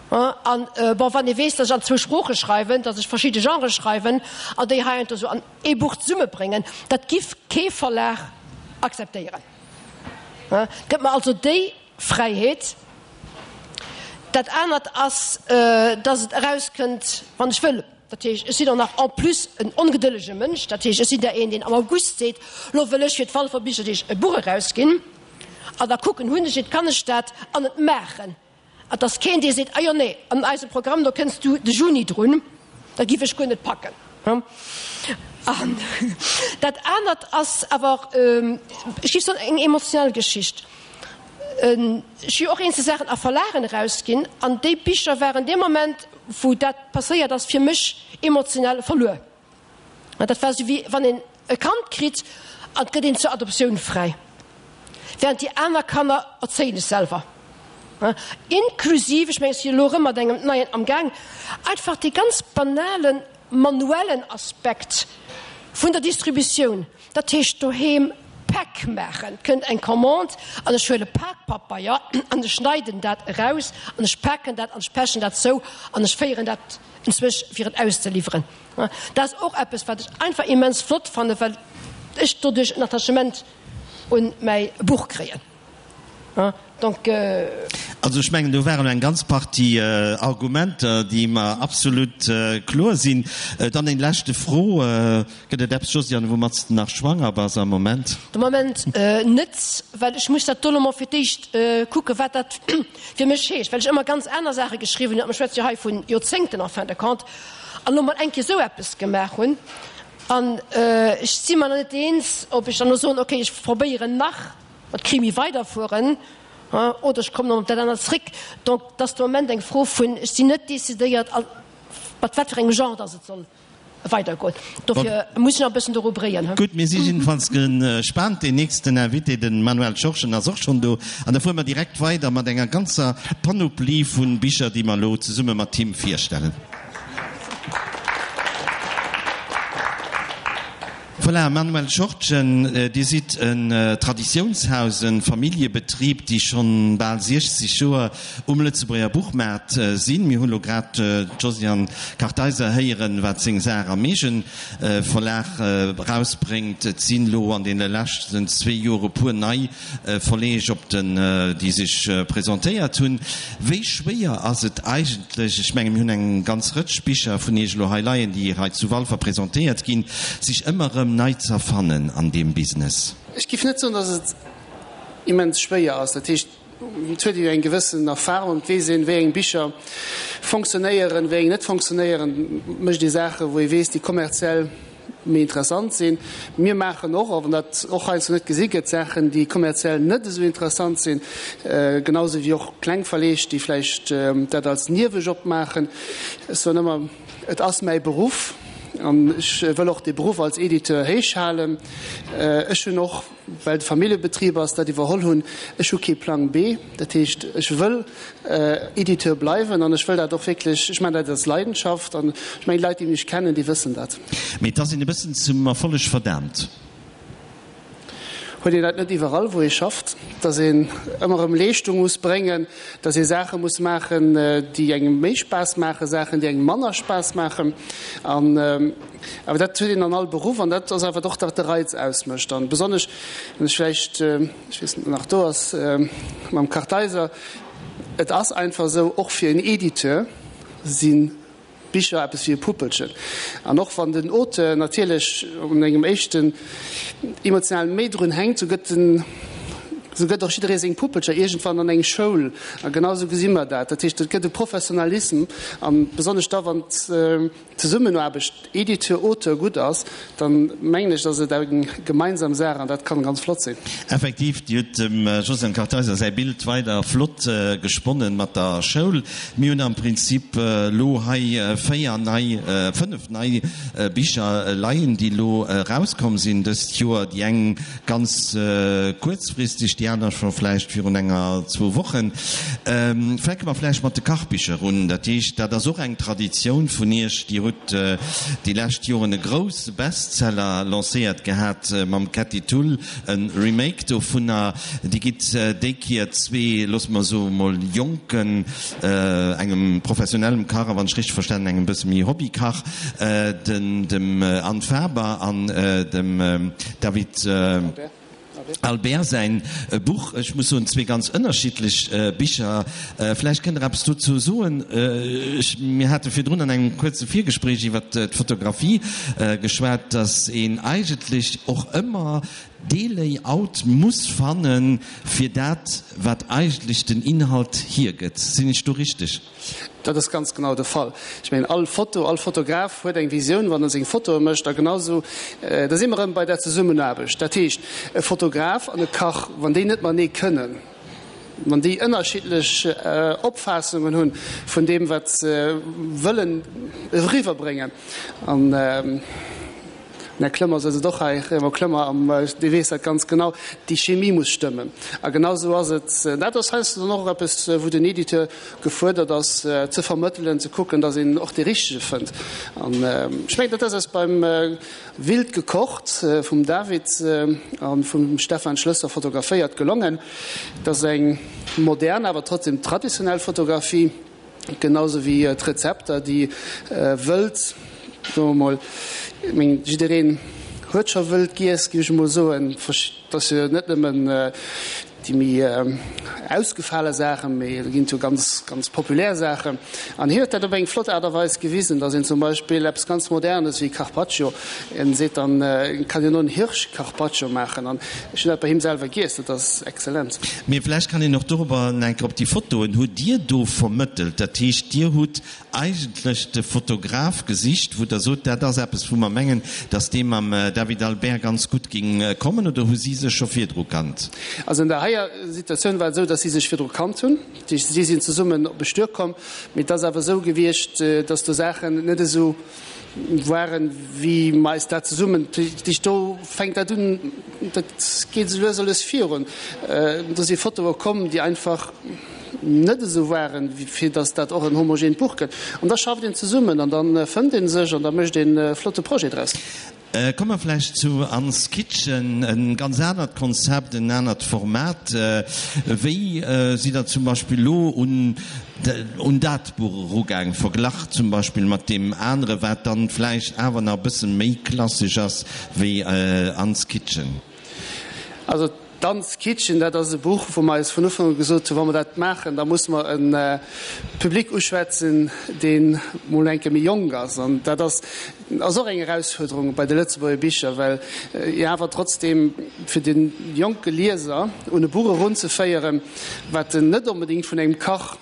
An, bon, wann ee weess, datt ech an zwou Sprooche schreiwen, datt ech verschidde Genrë schreiwen an déi heiansdo esou an ee Buch zesummebréngen, dat giff kee Verlag akzeptéieren. Gëtt mer also déi Fräiheet. Dat anert ass, datt et erauskënnt, wann ech wëll. Dat heescht, ech sinn och nach en plus en ongedëllege Mënsch. Dat heescht, ech sinn der een, deen am August seet, Lo wëll ech fir d'Walfer Bicherdeeg e Buch erausginn. An da kucken, hunn ech et, kann ech dat an et maachen. Et ass keen, dee seet, Ah jo, nee, an eisem Programm, do kënns du de Juni drun, dat giff ech guer net packen. An dat anert ass awer, ech giff soen, eng emotionell Geschicht. Ech hu jo och eenzel Saachen a Verlagen erausginn, an déi Bicher waren dee Moment, wou dat passéiert ass, fir mech emotionell verluer. Dat war esou wéi wann een e Kand kritt an et gëtt een zur Adoptioun fräi, während déi aner Kanner erzéien ech selwer. Inklusiv, ech mengen ech sinn elo erëm mat engem neien amgaang, einfach dee ganz banale manuellen Aspekt vun der Distributioun, dat heescht doheem. Päck maachen. Et kënnt eng Commande an ech huele Pakpabeier an ech schneiden dat eraus an ech paken dat an ech pechen dat zou an ech féieren dat enzwousch fir et auszeliwweren. Dat ass och eppes, wat ech einfach immens flott fannen, well ech doduerch en Attachement un mäi Buch kréien. Donc. Also ech mengen, do waren elo eng ganz Partie Argumenter, déi mer absolut kloer sinn. Dann eng leschte Fro, Gëtt et eppes, Josiane, woumat s de nach schwanger bass am Moment? De Moment net, well ech muss dat do elo mol fir d'éischt kucken, wat dat fir mech heescht, well ech ëmmer ganz aner Saache geschriwwen hunn. A mir schwätze jo hei vu Joerzéngten en fin de compte. An elo mol eng Kéier esou eppes gemaach hunn. An ech si mer nach net eens, ob ech dann elo soen, okay, ech probéieren nach mat Krimi weiderfueren oder ech kommen op dat anert zréck. Donc, et ass de Moment eng Fro vun, ech sinn net decidéiert, mat wat fir engem Genre dass et soll weidergoen. Dofir muss ech nach e bëssen doru bréien. Gutt, mir si jiddefalls gespaant. Deen nächsten Invité, de Manuel Schorschen, ass och schonn do. An da fuere mer direkt weider mat enger ganzer Panoplie vu Bicher, déi mer elo zesumme mat him virstellen. Voilà, Manuel Schortgen, Dir sidd en Traditiounshaus, e Familljebetrib, déi schonn bal 60 Joer um Lëtzebuerger Buchmaart sinn. Mir hunn elo grad d'Josiane Kartheiser héieren, wat seng Saach am Eegeverlag erausbréngt. Et sinn elo an deene leschten zwee Joer e puer nei Verleeg op den, déi sech presentéiert hunn. Wéi schwéier ass et eigentlech, ech menge mir hunn eng ganz Rëtsch Bicher vun Iech elo hei leien, déi hei zu Walfer presentéiert ginn, sech ëmmer erëm nei z'erfannen an deem Business? Ech géif net soen, datt et immens schwéier ass. Dat heescht, et huet ee jo eng gewëssen Erfahrung, et weess een, wéi eng Bicher fonctionnéieren, wéi eng net fonctionnéieren. Et mécht ee Saachen, wou ee weess, déi kommerziell méi interessant sinn. Mir maachen och, och wann dat och heiansdo net gesi gëtt, Saachen, déi kommerziell net esou interessant sinn, genau esou wéi och kleng Verleeg, déi vläicht dat als Niewejob maachen. Ech soen ëmmer, et ass mäi Beruff an ech wëll och dee Beruff als Editeur héich halen. Ech hunn och, well et e Familljebetrib ass, dat iwwerholl hunn. Ech hu kee Plang B. Dat heescht, ech wëll Editeur bleiwen an ech wëll dat och wierklech, ech maachen dat als Leidenschaft an ech mengen, déi Leit, déi mech kennen, déi wëssen dat. Mee et ass een e bëssen zum Erfolleg verdaamt. Huet een dat net iwwerall, wou ee schafft, datt een ëmmer erëm Leeschtung muss bréngen, datt ee Saache muss maachen, déi engem méi Spaass maachen, Saachen, déi engem manner Spaass maachen? An awer dat huet een an all Beruff an dat ass awer och dat, wat de Reiz ausmécht. An besonnesch, wann ech vläicht, ech weess net, ob en nach do ass, mam Kartheiser, et ass einfach esou, och fir en Editeur si Bicher eppes wéi e Puppelchen. An och wann den Auteur natierlech un engem éischten emotional méi drun hänkt, sou gëtt den, sou gëtt och jidderee seng Puppelcher iergendwann an eng Schoul. A genau esou gesi mer dat. Dat heescht, et gëtt e Professionalism an besonnesch da wann d'Zesummenaarbecht Editeur-Auteur gutt ass, dann mengen ech, ass et eng gemeinsam Saach an dat kann ganz flott sinn. Effektiv, Dir hutt dem Josiane Kartheiser säi Bild weider flott gesponnen mat der Schoul. Mir hunn am Prinzip elo hei 4 nei, 5 nei Bicher leien, déi elo erauskomm sinn dëst Joer. Déi eng ganz kuerzfristeg, déi aner scho vläicht virun enger, zwou Wochen. Fänke mer vläicht mat de Kachbicher un. Dat heescht, dat ass och eng Traditioun vun Iech. Dir hutt déi lescht Joren e grousse Bestseller lancéiert gehat mam Ketty Thull, e Remake dovunner. Dir gitt déi Kier zwee, loosse mer soe mol jonken, engem professionellem Kach a wann ech richteg verstanen, engem bësse méi Hobbykach, den dem Anne Faber an dem David Albert säin Buch. Ech muss soen, zwee ganz ënnerschiddlech Bicher. Vläicht kënnt Der eppes dozou soen. Ech, mir hate virdrun an engem kuerze Virgespréich iwwer d'Fotografie geschwat, datt een eigentlech och ëmmer dee Layout muss fannen, fir dat, wat eigentlech den Inhalt hiergëtt. Sinn ech do richteg? Dat ass ganz genau de Fall. Ech mengen, all Foto, all Fotograf huet eng Visioun, wann e seng Fotoe mécht. A genau esou, da si mer erëm bei der Zesummenaarbecht. Dat heescht, e Fotograf an e Kach, wann déi net matenee kënnen, wann déi ënnerschiddlech Opfaassungen hunn vun deem, wat se wëllen eriwwerbréngen, an. Den Här Clement sëtzt och hei, Raymond Clement, an dee weess dat ganz genau, déi Chemie muss stëmmen. A genau esou ass et. Dat ass heiansdo dann och eppes, wou den Editeur gefuerdert ass, ze vermëttelen, ze kucken, datt een och dee Richtege fënnt. An ech mengen, dat ass eis beim Wild gekocht vum David a vum Stefan Schlösser fotograféiert gelongen. Et ass eng modern, awer trotzdem traditionell Fotografie. Genau sou wéi d'Rezepter, déi wëld, soe mer mol, ech mengen, jiddereen huet scho wëld giess, géif ech emol soen. Et ass jo net nëmmen déi méi ausgefale Saachen, mee et ginn jo ganz, ganz populär Saachen. An hien huet dat op eng flott Aart a Weis gewisen, datt een zum Beispill eppes ganz Modernes wéi Carpaccio, en seet dann, en kann jo no en Hirsch-Carpaccio maachen. An ech hunn dat bei him selwer giess, dat ass exzellent. Mee vläicht kann een och dorobber eng Kéier op déi Fotoen, hutt Dir do vermëttelt? Dat heescht, Dir hutt eigentlech de Fotograf gesicht, wou Der sot, dat ass eppes, wou mer mengen, datt dee mam David Albert ganz gutt géing kommen, oder hu si sech scho virdru kannt? Also an der heier Situatioun war et esou, datt si sech virdru kannt hunn. Si sinn zesummen op e Stuer komm. Mee et ass awer esou gewiescht, datt do Saachen net esou waren, wéi mer eis dat zesummen, dat do fänkt dat un, dat geet esou lues a lues virun. Do si Fotoe komm, déi einfach net esou waren, fir datt dat och en homogeent Buch gëtt. An da schafft een zesummen an da fënnt ee sech an da mécht een e flotte Projet draus. Komme mer vläicht zu Anne's Kitchen, e ganz anert Konzept, en anert Format. Wéi sidd Der zum Beispill elo un un dat Buch erugaang, verglach zum Beispill mat deem anere, wat dann vläicht awer nach e bësse méi klassesch ass wéi Anne's Kitchen? Also D'Anne's Kitchen, dat ass e Buch, wou mer eis vun Ufank u gesot hunn, wa mer dat maachen, da musse mer e Public uschwätzen, dee mol eng Kéier méi jonk ass. An dat ass ass och eng Erausfuerderung bei de Lëtzebuerger Bicher, well jo awer trotzdeem fir de jonke Lieser un e Buch erunzeféieren, wat en net onbedéngt vun engem Kach,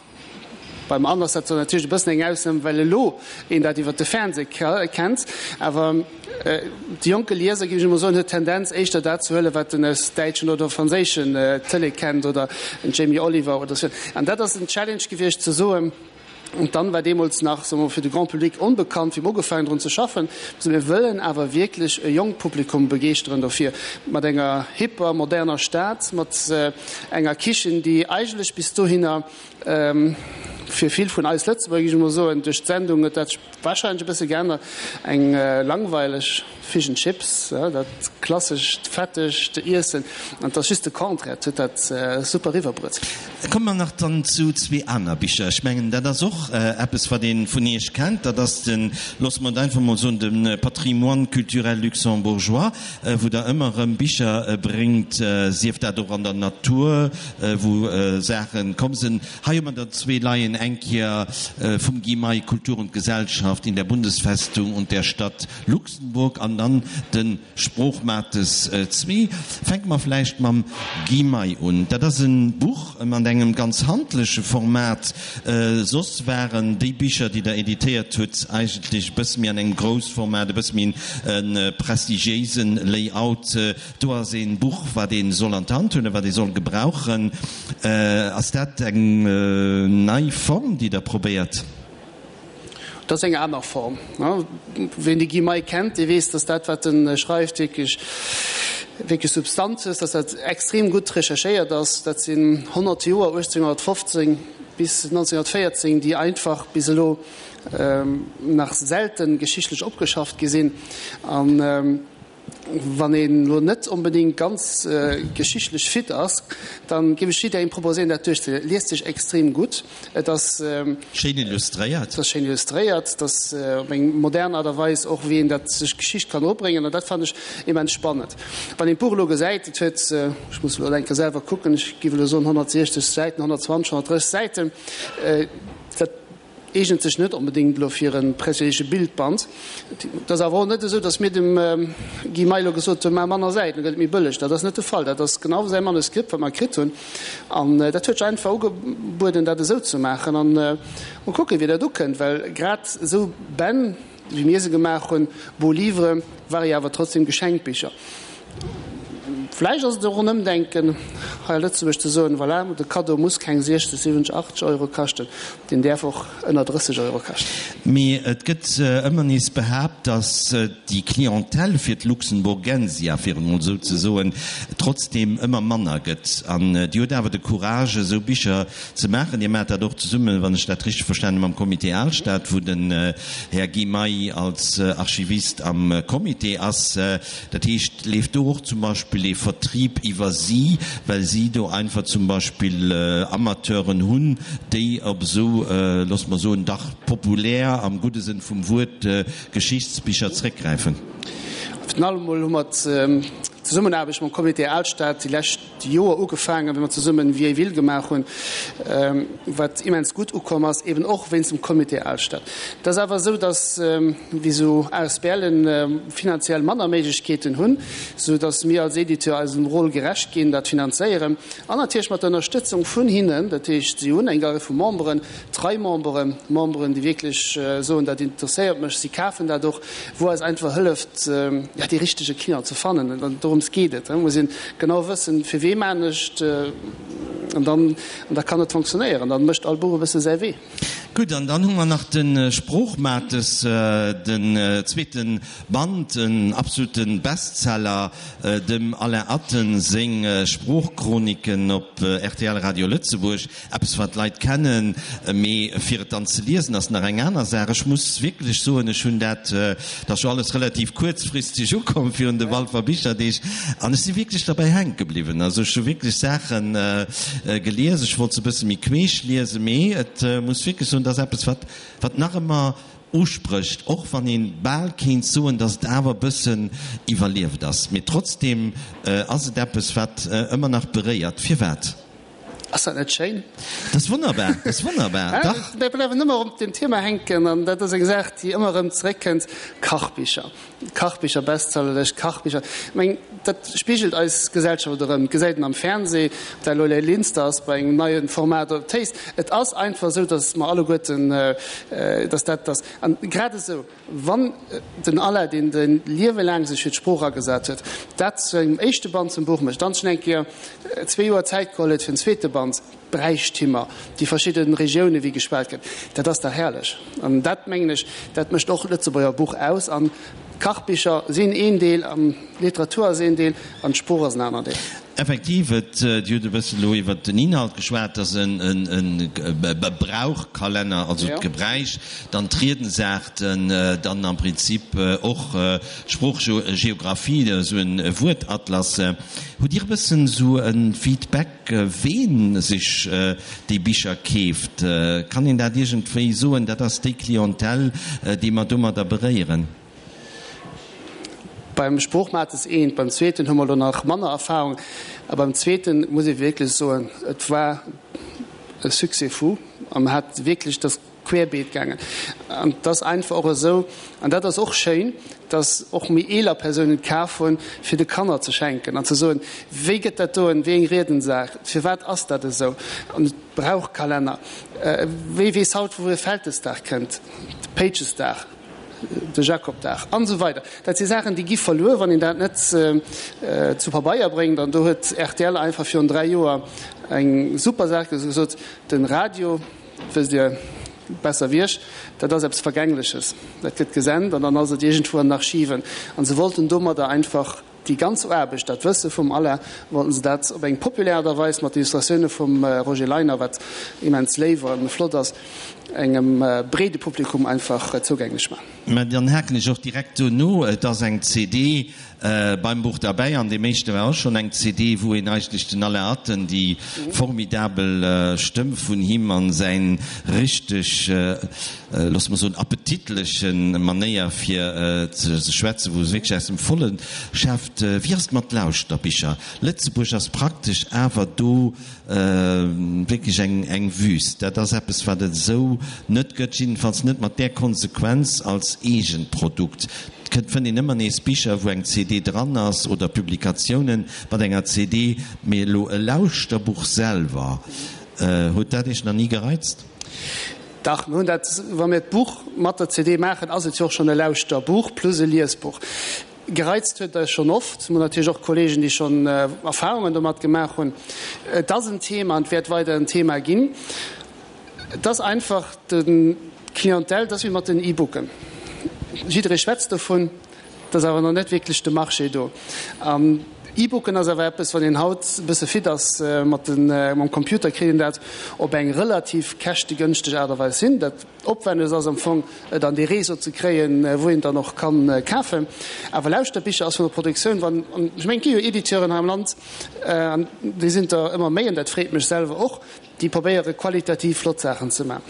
Beim Anne ass dat zwar natierlech e bëssen eng Ausnam, well elo een dat iwwer de Fernseh kennt, awer de jonke Lieser, géif ech emol soen, huet d'Tendenz éischter dat ze huelen, wat en aus däitschen oder franséischen Tëlee kennt oder en Jamie Oliver oder sou. An dat ass en Challenge gewiescht ze soen, an d'Anne war deemools nach, soe mer, fir de Grand Public onbekannt, wéi mer ugefaangen drun ze schaffen, mir wëllen awer wierklech e jonkt Publikum begeeschteren dofir, mat enger hipper, moderner Stad, mat enger Kichen, déi eigentlech bis dohinner Fir vill vun eis Lëtzebuerger, géif ech emol soen, duerch d'Sendung huet dat sech warscheinlech e bësse geännert, eng langweileg Fish and Chips, dat klassescht fettegt Iessen, an et ass just de Contraire, et huet dat super eriwwerbruet. Komme mer nach dann zu zwee aner Bicher. Ech mengen, dat ass och eppes, wat ee vun Iech kennt, dat ass de, loosse mer et einfach emol soen, de Patrimoine culturel luxembourgeois, wou Der ëmmer erëm Bicher bréngt, sief dat och an der Natur, wou Saachen komm sinn. Hei hu mer der zwee leien, eng Kéier vum Guy May, Kultur und Gesellschaft in der Bundesfestung und der Stadt Luxemburg an dann de Sproochmates zwee. Fänke mer vläicht mam Guy May un. Dat ass e Buch mat engem ganz handleche Format. Soss waren déi Bicher, déi Der editéiert hutt, eigentlech e bësse méi an engem Groussformat, e bësse méi e prestigiéisen Layout. Do ass een Buch, wat ee soll an d'Hand huelen, wat ee soll gebrauchen. Ass dat eng nei Form, déi Der probéiert? Dat ass eng aner Form. Ween de Guy May kennt, dee weess, datt dat, wat e schreift, wierklech, wierklech Substanz huet, datt dat extrem gutt recherchéiert ass. Dat sinn 100 Joer, 1815 bis 1914, déi einfach bis elo nach selten geschichtlech opgeschafft gi sinn. An Wann een elo net onbedéngt ganz geschichtlech fit ass, dann géif ech jidderengem proposéieren dat duerchzeliesen. Et liest sech extrem gutt, et ass. Schéin illustréiert. Et ass schéin illustréiert, et ass op eng modern Aart a Weis och wéi een dat sech d'Geschicht kann eropbréngen an dat fannen ech immens spannend. Wann een d'Buch elo gesäit, et huet, ech muss elo eng Kéier selwer kucken, ech géif elo soen 160 Säiten, 120, 130 Säiten, dat. Eegent sech net onbedéngt elo fir e prestigiéise Bildband. Et ass awer och net esou, datt mir dem Guy May elo gesot hunn, Maach manner Säiten, da gëtt et méi bëlleg. Dat ass net de Fall. Dat ass genau säi Manuskript, wat mer kritt hunn. An dat huet sech einfach ugebueden, dat esou ze maachen. An mol kucken, wéi dat ukënnt, well grad esou Bänn, wéi mir se gemaach hunn, Beaux Livres, ware jo awer trotzdem Geschenkbicher. Vläicht ass et och en Ëmdenken hei a Lëtzebuerg ze soen, voilà, de Kaddo muss keng 60, 70, 80 Euro kaschten, deen däerf och ënner 30 Euro kaschten. Mee et gëtt ëmmer nees behaapt, datt déi Clientèle fir d'Luxemburgensia, fir et emol esou ze soen, trotzdeem ëmmer manner gëtt. An Dir hutt awer de Courage, esou Bicher ze maachen. Dir maacht dat och zesummen, wann ech dat richteg verstanen hunn, mam Comité Alstad, wou den Här Guy May als Archivist am Comité ass. Dat heescht, leeft do och zum Beispill ee Vertrieb iwwer si, well si do einfach zum Beispill Amateuren hunn, déi op esou, loosse mer soen, dach populär, am gudde Sënn vum Wuert, Geschichtsbicher zréckgräifen? Virun allem emol hu mer d'Zesummenaarbecht mam Comité Alstad déi lescht Joer ugefaangen, wéi mer zesummen Vieille Ville gemaach hunn, wat immens gutt ukomm ass, eben och wéinst dem Comité Alstad. Et ass awer esou, datt wéi esou ASBLen finanziell manner Méiglechkeeten hunn, sou datt mir als Editeur eisem Rôle gerecht ginn, dat finanzéieren an natierlech mat der Ënnerstëtzung vun hinnen. Dat heescht, si hunn eng Rei vu Memberen, trei Memberen, Memberen, déi wierklech soen, dat interesséiert mech, si kafen dat och, wou eis einfach hëlleft, ja, dee richtege Client ze fannen. An dorëms geet et. Et muss een genau wëssen, fir wee maan ech et, an dann, an da kann et fonctionnéieren. Dann mécht all Buch e bësse säi Wee. Gutt, an dann hu mer nach de Sproochmates, den zweete Band, en absolute Bestseller, dem Alain Atten seng Sproochchroniken op rtl Radio Lëtzebuerg. Eppes wat d'Leit kennen, mee fir et dann ze liesen ass nach eng aner Saach. Ech muss wierklech soen, ech hunn dat, dat ass jo alles relativ kuerzfristeg ukomm virun de Walfer Bicherdeeg, an ech si wierklech derbäi hänke bliwwen. Also ech hu wierklech Saache gelies, ech wollt se e bësse méi queesch liesen, mee et muss wierklech soen, dat ass eppes wat wat nach ëmmer usprécht, och wann ee bal kéint soen, datt et awer e bëssen iwwerlieft ass. Mee trotzdem ass et eppes wat ëmmer nach beréiert. Firwat? Ass dat net schéin? Dat ass wonnerbar, dat ass wonnerbar, dach. Mir bleiwen ëmmer op deem Thema hänken, an dat ass eng Saach, déi ëmmer erëm zeréckkënnt, Kachbicher, Kachbicher, Bestsellerlëscht, Kachbicher. Ech mengen, dat spigelt eis Gesellschaft erëm. Et gesäit een am Fernseh, ob dat elo Lay Linster ass bei engem neie Format oder Taste. Et ass einfach esou, datt mer alleguerten, datt dat ass. An grad esou Wann den Alain, deen säin Liewe laang sech fir d'Sprooch agesat huet, dat zu engem éischte Band zum Buch mécht, dann schonn eng Kéier zwee Joer Zäit geholl huet fir den zweete Band, d'Bräichtimer, déi verschidde Regiounen, wéi geschwat gëtt, dat ass dach herrlech. An dat, mengen ech, dat mécht och d'Lëtzebuerger Buch aus. An d'Kachbicher sinn een Deel, an d'Literatur ass een Deel, an d'Sprooch ass en aner Deel. Effektiv, et, Dir hutt e bëssen elo iwwert den Inhalt geschwat, et ass e Brauchkalenner, also d'Gebräich, dann d'Riedensaarten, dann am Prinzip och d'Sproochgeographie, esou e Wuertatlas. Hutt Dir e bëssen esou e Feedback, ween sech déi Bicher keeft? Kann een dat iergendwéi soen, dat ass déi Clientèle, déi mer domadder beréieren? Beim Sproochmates eent, beim zweeten hu mer elo nach manner Erfahrung. A beim zweete muss ee wierklech soen, et war e Succès fou a mer hat wierklech, et ass querbeet gaangen. An et ass einfach och esou, an dat ass och schéin, datt och méi eeler Persounen et kaf hunn, fir de Kanner ze schenken an ze soen, wéi gëtt dat doen, wéi eng Riedensaach, firwat ass dat esou? An et brauch Kalenner. Wie weess haut, wou e Vältesdag kënnt, de Péitchesdag? de Jakobdag an esou weider. Dat si Saachen, déi gi verluer, wann een dat net zu Pabeier bréngt. An do huet rtl einfach virun 3 Joer eng super Saach gesot, De Radio, wësst Dir besser wéi ech, dat ass eppes Vergängleches, dat gëtt gesent an dann ass et iergendwou an den Archiven. An se wollten domadder einfach Déi ganz Aarbecht, dat Wësse vum Alain, wollten se dat op eng populär Aart a Weis mat Illustratioune vum Roger Leiner, wat immens léif a flott ass, engem breede Publikum einfach zougänglech maachen. Mä dann haken ech och direkt do no, Et ass eng CD beim Buch derbäi, an deem éischte war och schonn eng CD, wou een eigentlech den Alain Atten, déi formidabel Stëmm vun him an säin richteg, loosse mer soen, appetitleche Manéier fir ze schwätzen, wou se wierklech aus dem Volle schäfft. Wéi ass et mat Lauschterbicher? Lëtzebuerg ass praktesch awer do wierklech eng Wüst. Dat ass eppes, wat et esou net gëtt, jiddefalls net mat där Konsequenz als eegent Produkt. Et kënnt, fënnt een ëmmer nees Bicher, wou eng CD dran ass oder Publikatiounen mat enger CD, mee elo e Lauschterbuch selwer, huet dat Iech nach ni gereizt? Dach, mir hunn dat, wa mir d'Buch mat der CD maachen, ass et jo och schonn e Lauschterbuch plus e Liesbuch. Gereizt huet eis schonn oft. Mir hunn natierlech och Kollegen, déi schonn Erfahrungen domat gemaach hunn. Et ass en Thema an et wäert weider en Thema ginn. Et ass einfach d'Clientèle, et ass wéi mat den E-Booken. Jidderee schwätzt dovun, et ass awer nach net wierklech de Marché do. An E-Booken ass awer eppes, wann een haut e bësse fit ass mat de mam Computer, kritt een dat op eng relativ käschtegënschteg Aart a Weis hin. Dat Opwennegst ass am Fong, et an dee Réseau ze kréien, wou een dann och kann kafen. Awer Lauschterbicher ass vun der Produktioun, wann, an ech mengen, et gi jo Editeuren hei am Land, an déi sinn der ëmmer méi, an dat freet mech selwer och, Déi probéiere qualitativ flott Saachen ze man.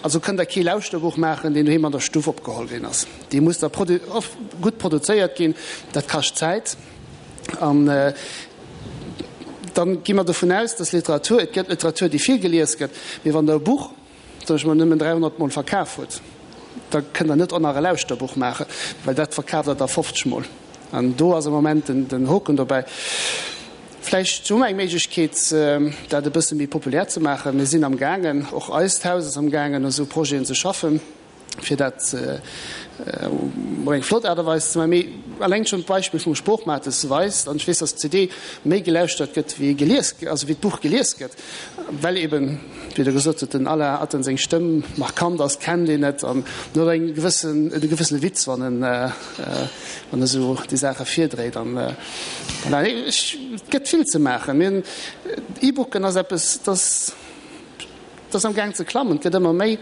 Also kënnt der kee Lauschterbuch maachen, deen doheem an der Stuff opgeholl ginn ass. Dee muss da gutt produzéiert ginn. Dat kascht Zäit. An dann gi mer dovun aus, dass Literatur, et gëtt Literatur, déi vill gelies gëtt, mee wann der e Buch, soen ech mol, nëmmen 300 mol verkaf hutt, da kënnt der net och nach e Lauschterbuch maachen, well dat verkaaft der da 50 mol. An do ass am Moment den Hoken dobäi. Vläicht hu mer eng Méiglechkeet, dat e bësse méi populär ze maachen. Mir sinn am gaangen, och eist Haus ass am gaangen, u sou Projeten ze schaffen, fir dat op eng flott Aart a Weis ze maachen. Mee eleng schonn d'Beispill vum Sproochmates weist, an ech weess, dass d'CD méi gelauschtert gëtt wéi gelies, also wéi d'Buch gelies gëtt, well eben, wéi Der gesot hutt, den Alain Atten seng Stëmm markant ass, kennt een et an en huet eng gewëssen, e gewëssene Witz, wann en, wann e sou déi Saache virdréit. An voilà, ech, et gëtt vill ze maachen. Mir hunn, E-Booken ass eppes, dat, dat ass am Gaang ze klammen, et gëtt ëmmer méi.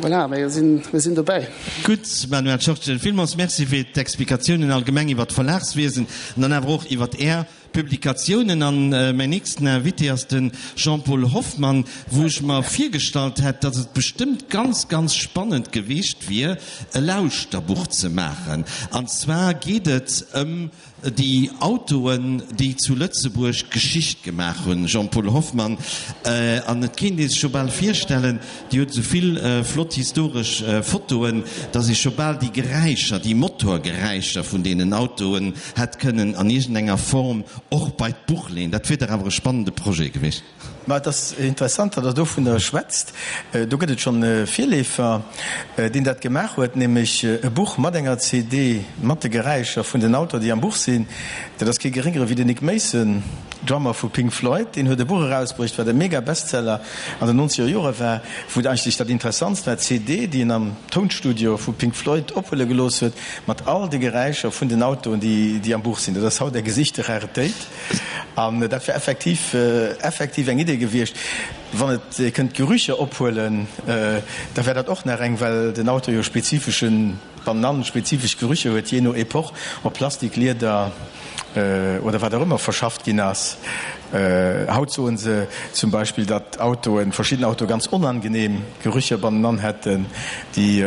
Voilà, mir sinn, mir sinn dobäi. Gutt, Manuel Schortgen, villmools Merci fir d'Explikatiounen allgemeng iwwer d'Verlagswiesen an dann awer och iwwer Är Publikatiounen. An mäin nächsten Invité ass de Jean-Paul Hoffmann, wou ech mer virgestallt hätt, datt et bestëmmt ganz, ganz spannend geweecht wier, e Lauschterbuch ze maachen. An zwar geet et ëm déi Autoen, déi zu Lëtzebuerg Geschicht gemaach hunn. Jean-Paul Hoffmann, an et kéint ee sech jo bal virstellen, Dir hutt esou vill flott historesch Fotoen, dass ee scho bal déi Geräischer, déi Motorgeräischer vun deenen Autoen hätt kënnen an iergendenger Form och bei d'Buch leeën. Dat wier dach awer e spannende Projet gewiescht. Ma et ass interessant, datt Der dovunner schwätzt. Do gëtt et schonn e Virleefer, deen dat gemaach huet, nämlech e Buch mat enger CD mat de Geräischer vun den Autoen, déi am Buch sinn. Dat ass kee Geréngere wéi den Nick Mason, Drummer vu Pink Floyd. Deen huet e Buch erausbruecht, wat e Mega-Bestseller an den nonzeger Jore war, wou et eigentlech dat Interessantst war, d'CD, déi en am Tounstudio vu Pink Floyd ophuele gelooss huet, mat all de Geräischer vun den Autoen, déi am Buch sinn. Dat ass haut eng gesichte Raretéit. An dat wär effektiv, effektiv eng Idee gewiescht. Wann et ee kënnt Gerücher ophuelen, da wär dat och nach eng, well den Auto jo spezifeschen, Banann spezifesch Gerücher huet, jee no Epoch, ob Plastik, Lieder oder wat och ëmmer verschafft ginn ass. Haut soen se zum Beispill, datt Autoen, verschidden Autoe ganz onangenehm Gerücher bannenan hätten, déi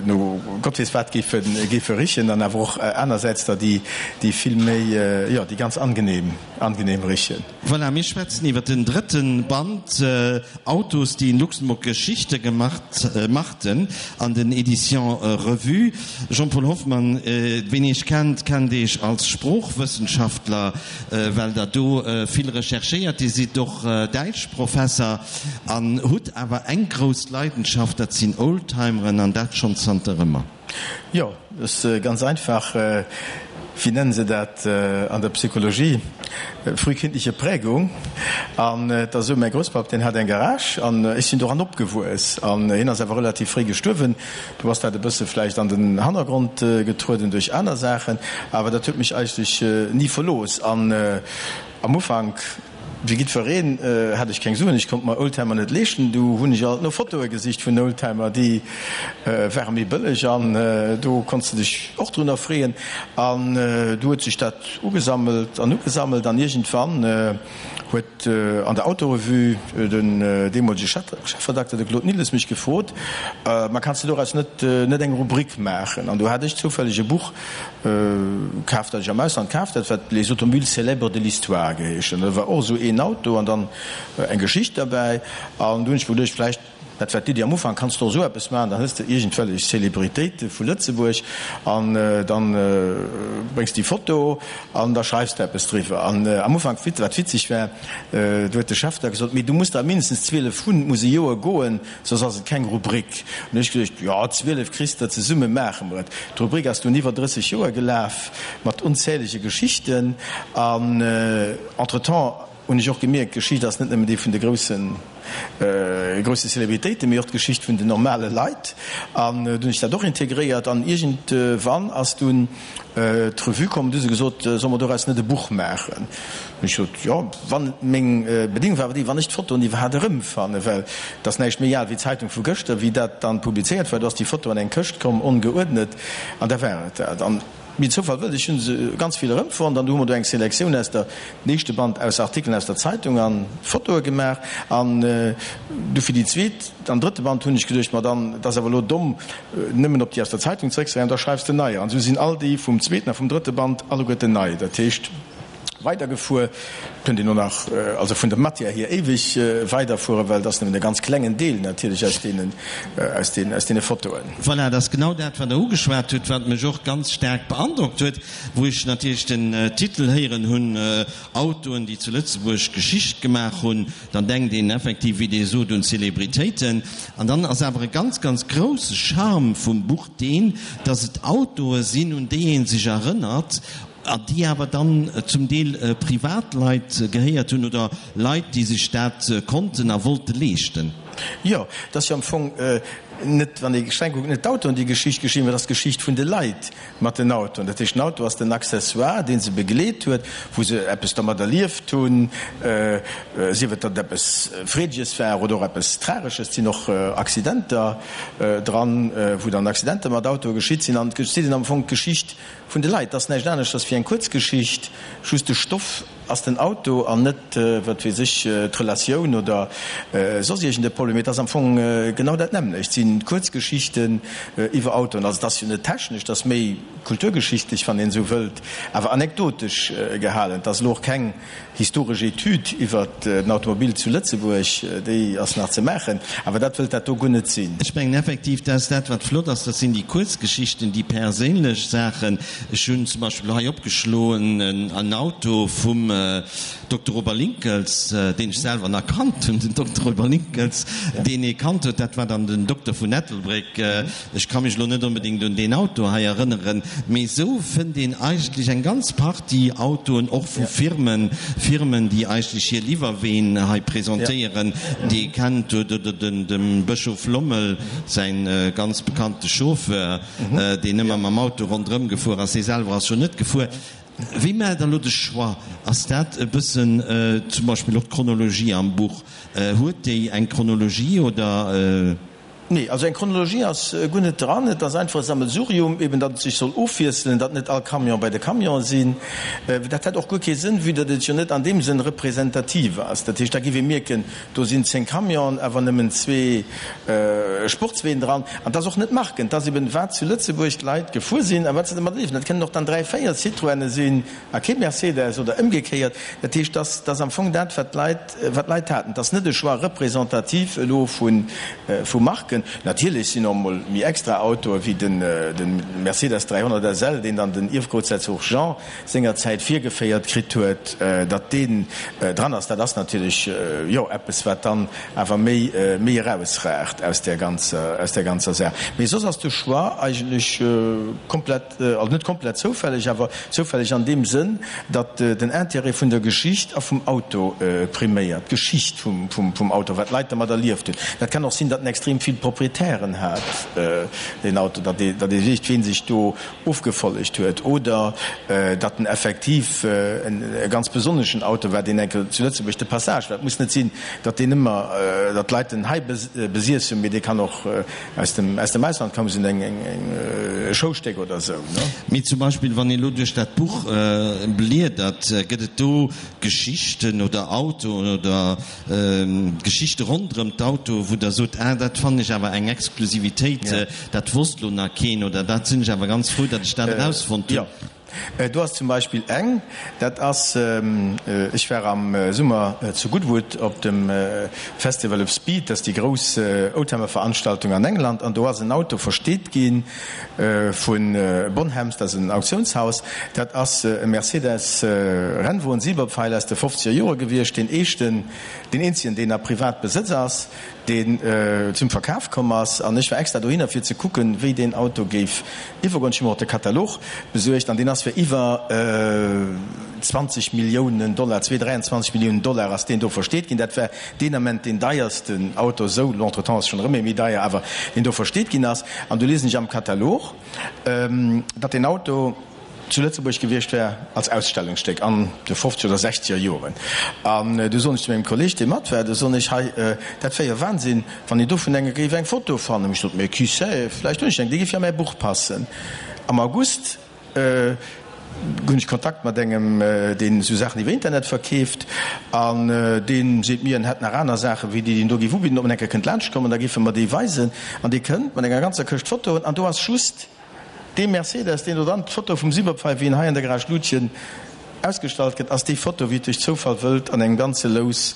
no Gott weess wat géife géife richen, an awer och anersäits der, déi déi vill méi, jo, déi ganz angenehm angenehm richen. Voilà, mir schwätzen iwwer den drëtten Band Autos, die in Luxemburg Geschichte gemacht machten an den Éditions Revue. Jean-Paul Hoffmann, ween Iech kennt, kennt Iech als Sproochwëssenschaftler, well Der do vill recherchéiert. Dir sidd och Däitschprofesser an hutt awer eng grouss Leidenschaft, dat sinn Oldtimeren, an dat schonn zanter ëmmer. Jo, dat ass ganz einfach. Wéi nennen se dat an der Psychologie? Frühkindliche Prägung. An et ass esou, mäi Grousspapp, deen hat eng Garage an ech sinn doran opgewuess. An hien ass awer relativ fréi gestuerwen. Du ass dat e bësse vläicht an den Hannergrond getrueden duerch aner Saachen, awer dat huet mech eigentlech ni verlooss. An am Ufank, Wéi jiddwereen hat ech keng Suen, ech konnt mer Oldtimer net leeschten. Du hunn ech alt no Fotoe gesicht vun Oldtimer, déi ware méi bëlleg an do konns de dech och drun erfreeën. An du huet sech dat ugesammelt an ugesammelt an iergendwann huet an der Autorevue den deemolege Chefredakter, de Claude Nilles, mech gefrot, Ma kanns de doraus net net eng Rubrik maachen? An du hat ech zoufälleg e Buch Kaf, dat ech am Ausland kaaft hat, wat Les automobiles célèbres de l'histoire geheescht. An da war och esou een Auto an dann eng Geschicht derbäi. An du hunn ech mer geduecht, vläicht. Dat war d'Iddi am Ufank, Kanns de och esou eppes maachen? Dann hues de iergendwellech Celebritéite vu Lëtzebuerg an dann bréngs déi Foto an da schreifs de eppes driwwer. An am Ufank, wat witzeg war, do huet de Chef da gesot, Mee du muss der mindestens 12 hunn, et muss e Joer goen, soss ass et keng Rubrik. An hu ech geduecht, Jo, 12 kriss de, zesumme maache mer et. D'Rubrik ass dunn iwwer 30 Joer gelaf, mat onzählege Geschichten an entretemps hunn ech och gemierkt, d'Geschicht ass net nëmmen déi vun de groussen, grousse Celebritéiten, mee och d'Geschicht vun den normale Leit. An dunn hunn ech dat och integréiert an iergendwann ass dunn d'Revue komm, du hu se gesot, solle mer doraus net e Buch maachen? Hunn ech gesot, jo, wann, meng Bedingung war awer déi, wann ech d'Fotoen iwwerhaapt erëmfannen, well et ass näischt méi al wéi d'Zeitung vu gëschter, wéi dat dann publizéiert war, do ass déi Foto an eng Këscht komm, ongeuerdnet, an da war et dat. An wéi den Zoufall wëllt, ech hu se ganz vill erëmfonnt an du hu mer do eng Selektioun aus der, den éischte Band aus Artikelen aus der Zeitung an Fotoe gemaach an du fir déi zweet an drëtte Band hunn ech geduecht, ma dann, et ass awer elo domm, nëmmen op déi aus der Zeitung zeréckzegräifen, da schreifs de neier. An esou sinn all déi vum zweeten a vum drëtte Band alleguerten nei. Dat heescht, weidergefuer. Kënnt een och nach, also vun der Matière hier, éiweg weiderfueren, well et ass nëmmen e ganz klengen Deel natierlech aus deenen, aus den, aus deene Fotoen. Voilà, et ass genau dat, wat Der ugeschwat hutt, wat mech och ganz staark beandrockt huet, wou ech natierlech den Titel héieren hunn, Autoen, déi zu Lëtzebuerg Geschicht gemaach hunn. Dann denkt een effektiv, wéi Dir sot, un Zelebritéiten. An dann ass awer e ganz, ganz grousse Charme vum Buch deen, dass et Autoe sinn, un déi ee sech erënnert, A déi awer dann zum Deel Privatleit gehéiert hunn oder Leit, déi sech dat konnten a wollte leeschten. Jo, et ass jo am Fong net, wann ee streng kuckt, net d'Autoen, déi Geschicht geschriwwen hunn, et ass d'Geschicht vun de Leit mat den Autoen. Dat heescht, den Auto ass den Accessoire, dee se begleet huet, wou se eppes domat erlieft hunn, sief et, datt et eppes Freedeges war oder och eppes Tragesches. Et sinn och Accidenter dran, wou dann Accidenter mat Autoe geschitt sinn. An et geet am Fong d'Geschicht Vun de Leit. Ass näischt aneschters wéi eng Kuerzgeschicht, just de Stoff ass den Auto an net, wat weess ech, d'Relatioun oder soss iergend e Problem. Mee et ass am Fong genau dat nämmlecht, et si Kuerzgeschichten iwwer Autoen. Also et ass jo net technesch, et ass méi kulturgeschichtlech, wann een esou wëllt, awer anekdotesch gehalen. Et ass elo och keng Historesch Etüd iwwer den Automobil zu Lëtzebuerg, déi ass nach ze maachen, awer dat wëllt dat do guer net sinn. Ech mengen effektiv, dat ass dat, wat flott ass, dat sinn déi Kuerzgeschichten, déi perséinlech Saachen. Ech hunn zum Beispill hei opgeschloen en Auto vum Dokter Robert Linckels, deen ech selwer nach kannt hunn, den Dokter Robert Linckels, deen ee kannt huet, dat war dann den Dokter vun Ettelbréck. Ech ka mech elo net onbedéngt un deen Auto hei erënneren, mee esou fënnt een eigentlech eng ganz Partie Autoen, och vu Firmen, Firmen, déi eigentlech hir Liwwerween hei presentéieren, déi ee kennt, oder dem Bëschof Lommel säin ganz bekannte Chauffeur, deen ëmmer mam Auto ronderëm gefuer ass, hie selwer ass jo net gefuer. Wéi maacht Der elo de Choix? Ass dat e bëssen zum Beispill och d'Chronologie am Buch, huet déi eng Chronologie oder? Nee, also eng Chronologie ass guer net dran. Et ass einfach e Sammelsurium, eben datt et sech soll ofwiesselen, datt net all Camion bei de Camionen sinn. Dat hätt och guer kee Sënn, vue datt et jo net an deem Sënn representativ ass. Dat heescht, da giff ee mierken, do sinn 10 Camionen, awer nëmmen zwee Sportsween dran. An et ass och net Marken, et ass eben wat zu Lëtzebuerg d'Leit gefuer sinn a wat se domat erliewen. Dat kënnen och dann dräi, véier Citroëne sinn a kee Mercedes oder ëmgekéiert. Dat heescht, dat ass am Fong dat, wat d'Leit Wat d'Leit haten, et ass net e Choix représentatif elo vu Marken. Natierlech sinn och emol méi extra Autoe wéi de Mercedes 300 SL, deen dann den Ierfgroussherzog Jean sengerzäit virgeféiert kritt huet, datt deen dran ass. Dat ass natierlech, jo, eppes, wat dann awer méi méi erausragt aus där ganzer, aus där ganzer Saach. Mee soss ass de Choix eigentlech komplett. Also net komplett zoufälleg, awer zoufälleg an deem Sënn, datt den Intérêt vun der Geschicht a vum Auto priméiert, d'Geschicht vum Auto, wat d'Leit dermat erlieft hunn. Dat kann och sinn, datt en extrem vill Proprietären hat, deen Auto, datt ee weess, ween sech do ofgefollegt huet, oder datt en effektiv e ganz besonneschen Auto war, deen enke zu Lëtzebuerg de Passage war. Et muss net sinn, datt deen ëmmer, datt d'Leit en hei besiess hunn, mee dee kann och Aus dem, aus dem Ausland koum se eng, eng, e Schoustéck oder esou, ne? Mee zum Beispill, wann ee lo duerch dat Buch bliedert, gëtt et do Geschichten oder Autoen oder Geschichte ronderëm d'Autoe wou Der sot, ah, dat fannen ech awer eng Exklusivitéit, dat wosst lo nach keen oder dat sinn ech awer ganz frou, datt ech dat erausfonnt hunn? Jo. Do ass zum Beispill eng, dat ass, ech war am Summer zu Goodwood op dem Festival of Speed, dat ass déi grouss Oldtimer-Veranstaltung an England, an do ass en Auto versteet gi vu Bonhams, dat ass en Auktiounshaus, dat ass e Mercedes Rennwon Silberpfeil aus de fofzeger Jore gewiescht, deen éischten, deen eenzegen, deen a Privatbesëtz ass. deen zum Verkaf komm ass, an ech war extra dohinner fir ze kucken, wéi deen Auto géif iwwergoen. Ech hu mer och de Katalog besuergt, an deen ass fir iwwer 20 Milliounen Dollar, 23 Milliounen Dollar ass deen do versteet ginn. Dat war deen Ament deen deiersten Auto esou, lo entretemps ass schonn erëm ee méi deier, awer deen do versteet ginn ass. An du liesen ech am Katalog, datt deen Auto, zu Lëtzebuerg gewiescht wär als Ausstellungsstéck an de fofzeger oder sechzeger Joren. An du soen ech zu mengem Kolleg, dee mat war, du soen ech, hei, dat wär jo Wahnsinn, wann een dovun enge géif eng Foto fannen. Ech sot, mais qui sait, vläicht hunn ech eng, déi géif jo a mäi Buch passen. Am August hunn ech Kontakt mat engem, deen esou Saachen iwwer Internet verkeeft, an dee seet mir, en hätt nach aner Saachen, wéi déi, déi en do géif ubidden, ob en eng Kéier kënnt laanschtkommen, da géife mer déi weisen. An dee kënnt mat enger ganzer Këscht Fotoen, an do ass just Dee Mercedes, deen do dann, d'Foto vum Silberpfeil, wéi en hei an der Garage Lutgen ausgestallt gëtt, ass déi Foto, wéi et duerch Zoufall wëllt, an engem ganze Lous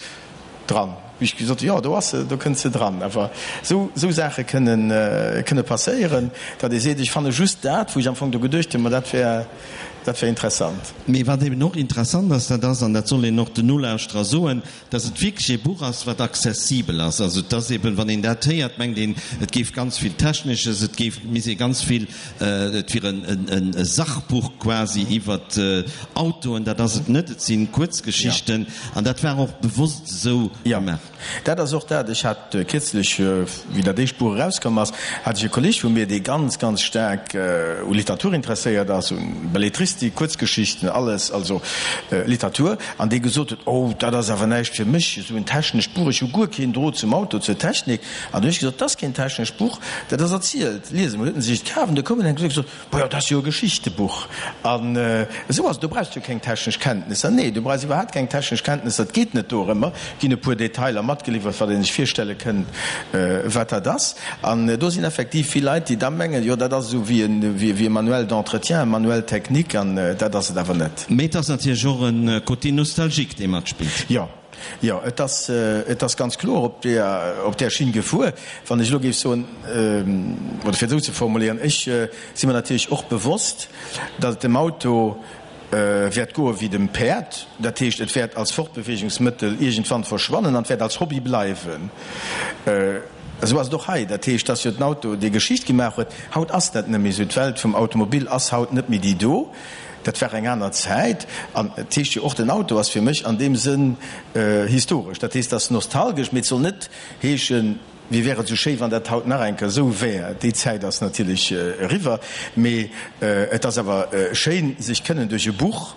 dran. Wéi ech gesot hunn, jo, do ass se, do kënnt se dran. Awer esou, esou Saache kënnen, kënne passéieren, datt ee seet, ech fanne just dat, wou ech am Fong do geduecht hunn, ma dat wär, dat wär interessant. Mee wat eben och interessant ass, dat ass, an dat soll een och den Nolauschterer soen, dass et wierklech ee Buch ass, wat accessibel ass. Also et ass eben, wann een dat héiert, mengt een, et géif ganz vill Technesches, et géif, misst ee ganz vill, et wier en e Sachbuch quasi iwwert Autoen. Dat ass et net, et si Kuerzgeschichten an dat war och bewosst esou gemaach. Jo, dat ass och dat. Ech hat kierzlech, wéi dat éischt Buch erauskomm ass, hat ech e Kolleg vu mir, dee ganz, ganz staark u Literatur interesséiert ass, u Belletristik, Kuerzgeschichten, alles, also Literatur, an dee gesot huet, Oh, dat ass awer näischt fir mech, esou en technescht Buch, ech hu guer keen Drot zum Auto, zur Technik. An du hunn ech gesot, Dat ass keen technescht Buch, dat ass erzielt. Lies emol. Huet en sech et kaf an du koum en an huet gesot, Bojo, dat ass jo e Geschichtebuch. An esou ass et, do brauchs du jo keng technesch Kenntnisser. Nee, du brauchs iwwerhaapt keng technesch Kenntnisser, et geet net dorëmmer. Et ginn e puer Detailer matgeliwwert, wat ee sech virstelle kënnt, wat dat ass. An do sinn effektiv vill Leit, déi da mengen, jo, dat ass esou wéi e Manuel d'entretien, e Manuel technique, an dat ass et awer net. Mee et ass natierlech och e Côté nostalgique, dee matspillt. Jo. Jo, et ass, et ass ganz kloer op där, op där Schinn gefuer. Wann ech elo géif soen, oder fir et esou ze formuléieren, ech si mer natierlech och bewosst, datt et dem Auto wäert goe wéi dem Päerd, dat heescht, et wäert als Fortbeweegungsmëttel iergendwann verschwannen an et wäert als Hobby bleiwen. Esou ass et och hei. Dat heescht, datt jo den Auto déi Geschicht gemaach huet. Haut ass dat net méi esou. D'Welt vum Automobil ass haut net méi déi do. Dat war eng aner Zäit. An et heescht jo och, den Auto ass fir mech an deem Sënn historesch. Dat heescht, et ass nostalgesch, mee et soll net heeschen, wéi wär et esou schéi, wann dat haut nach eng Kéier esou wär. Déi Zäit ass natierlech eriwwer. Mee et ass awer schéin, sech kënnen duerch e Buch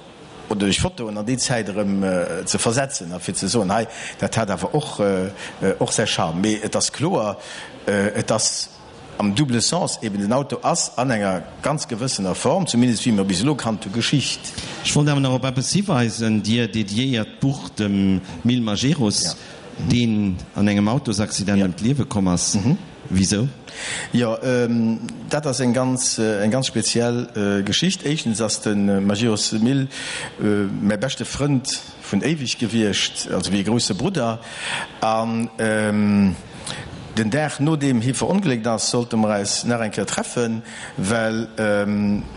oder duerch Fotoen an déi Zäit erëm ze versetzen a fir ze soen, hei, dat hat awer och och säi Charme. Mee et ass kloer, et ass am double Sens eben, den Auto ass an enger ganz gewëssener Form, zumindest wéi mer bis elo kannt hu, Geschicht. Ech wollt awer nach op eppes hiweisen, Dir dediéiert d'Buch dem Mil Majerus, deen an engem Autosaccident ëm d'Liewe komm ass. Wisou? Jo, dat ass eng ganz, eng ganz speziell Geschicht. Éischtens ass de Majerus Mil mäi beschte Frënd vun éiweg gewiescht, also wéi e grousse Brudder. An den Dag nodeem hie verongléckt ass, sollte mer eis nach eng Kéier treffen, well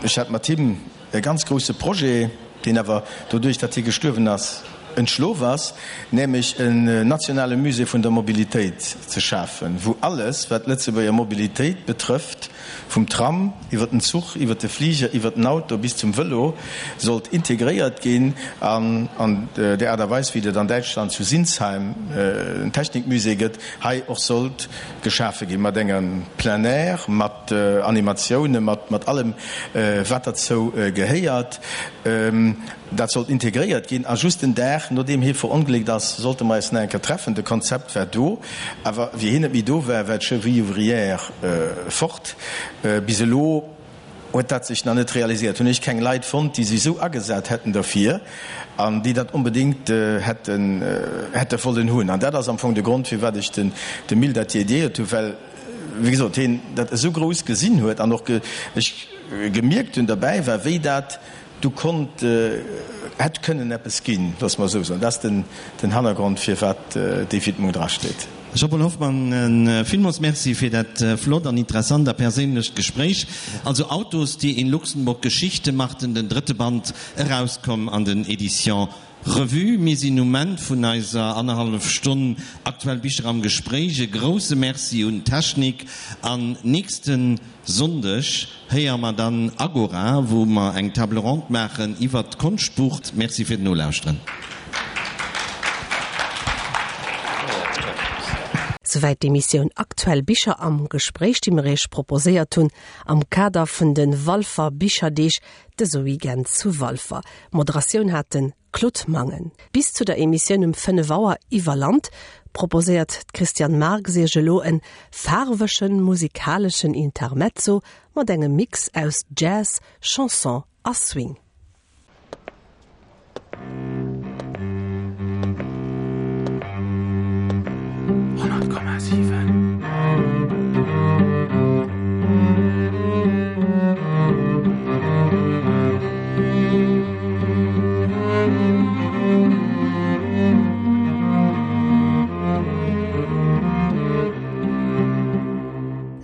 ech hat mat him e ganz grousse Projet, deen awer doduerch, datt hie gestuerwen ass, entschlof ass, nämlech en nationale Musée vun der Mobilitéit ze schafen, wou alles, wat d'Lëtzebuerger Mobilitéit betrëfft, vum Tram iwwer den Zuch, iwwer de Fliger, iwwer den Auto bis zum Vëlo, sollt integréiert ginn an an där Aart a Weis, wéi et an Däitschland zu Sinsheim en Technikmusée gëtt, hei och sollt geschafe ginn, mat engem Plein air, mat Animatiounen, mat allem, wat derzou gehéiert. Dat sollt integréiert ginn. A just den Dag, nodeem hie verongléckt ass, sollte mer eis nach eng Kéier treffen. De Konzept war do, awer wéi hien net méi do war, war d'Cheville ouvrière fort. Bis elo huet dat sech nach net realiséiert. Hunn ech keng Leit fonnt, déi sech esou agesat hätten derfir an déi dat onbedéngt hätten hätte wollen hunn. An dat ass am Fong de Grond, firwat ech dem Mil dat dediéiert hunn, well, wéi gesot, hien dat esou grouss gesinn huet an och ech gemierkt hunn, derbäi war, wéi dat. Do konnt, hätt kënnen eppes ginn, loosse mer esou soen. Dat ass den Hannergrond, firwat déi Widmung drasteet. Jean-Paul Hoffmann, villmools Merci fir dat flott an interessant a perséinlecht Gespréich. Also Autos, die in Luxemburg Geschichte machten, den drëtte Band, erauskomm an den Editions Revue. Mir sinn um Enn vun eiser annerhallef Stonn Aktuell Bicher am Gespréich. E grousse Merci un d'Technik an nächste Sonndeg héiere mer dann Agora, wou mer eng Table ronde maachen iwwert d'Konschtbuch. Merci fir d'Nolauschteren. Souwäit d'Emissioun Aktuell Bicher am Gespréich, déi mer Iech proposéiert hunn am Kader vun de Walfer Bicherdeeg dëse Weekend zu Walfer. D'Moderatioun hat de Claude Mangen. Bis zu der Emissioun um 5 Auer iwwer Land proposéiert d'Christiane Marx Iech elo en faarwegen musikaleschen Intermezzo mat engem Mix aus Jazz, Chanson a Swing.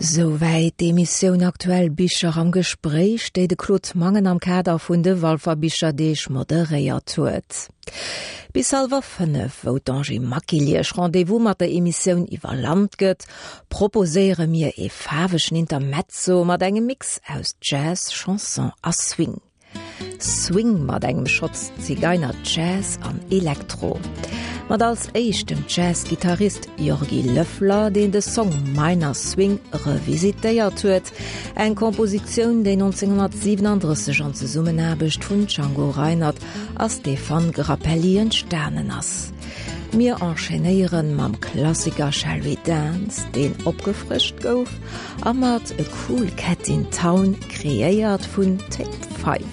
Souwäit d'Emissioun Aktuell Bicher am Gespréich, déi de Claude Mangen am Kader vun de Walfer Bicherdeeg moderéiert huet. Bis hallwer 5, wou d'Angie Maquil Iech Rendez-vous mat der Emissioun Iwwer Land gëtt, proposéiere mir ee faarwegen Intermezzo mat engem Mix aus Jazz, Chanson a Swing. Swing mat engem Schotz Zigeiner Jazz an Elektro. Mat als éischt dem Jazz-Gittarist Jorgi Löffler, deen de Song Minor Swing revisitéiert huet, eng Kompositioun, déi 1937 an Zesummenaarbecht vun Django Reinhardt a Stéphane Grappelli entstanen ass. Mir enchaînéieren mam Klassiker Shall We Dance, deen opgefrëscht gouf, a mat A Cool Cat in Town, kreéiert vun Take 5.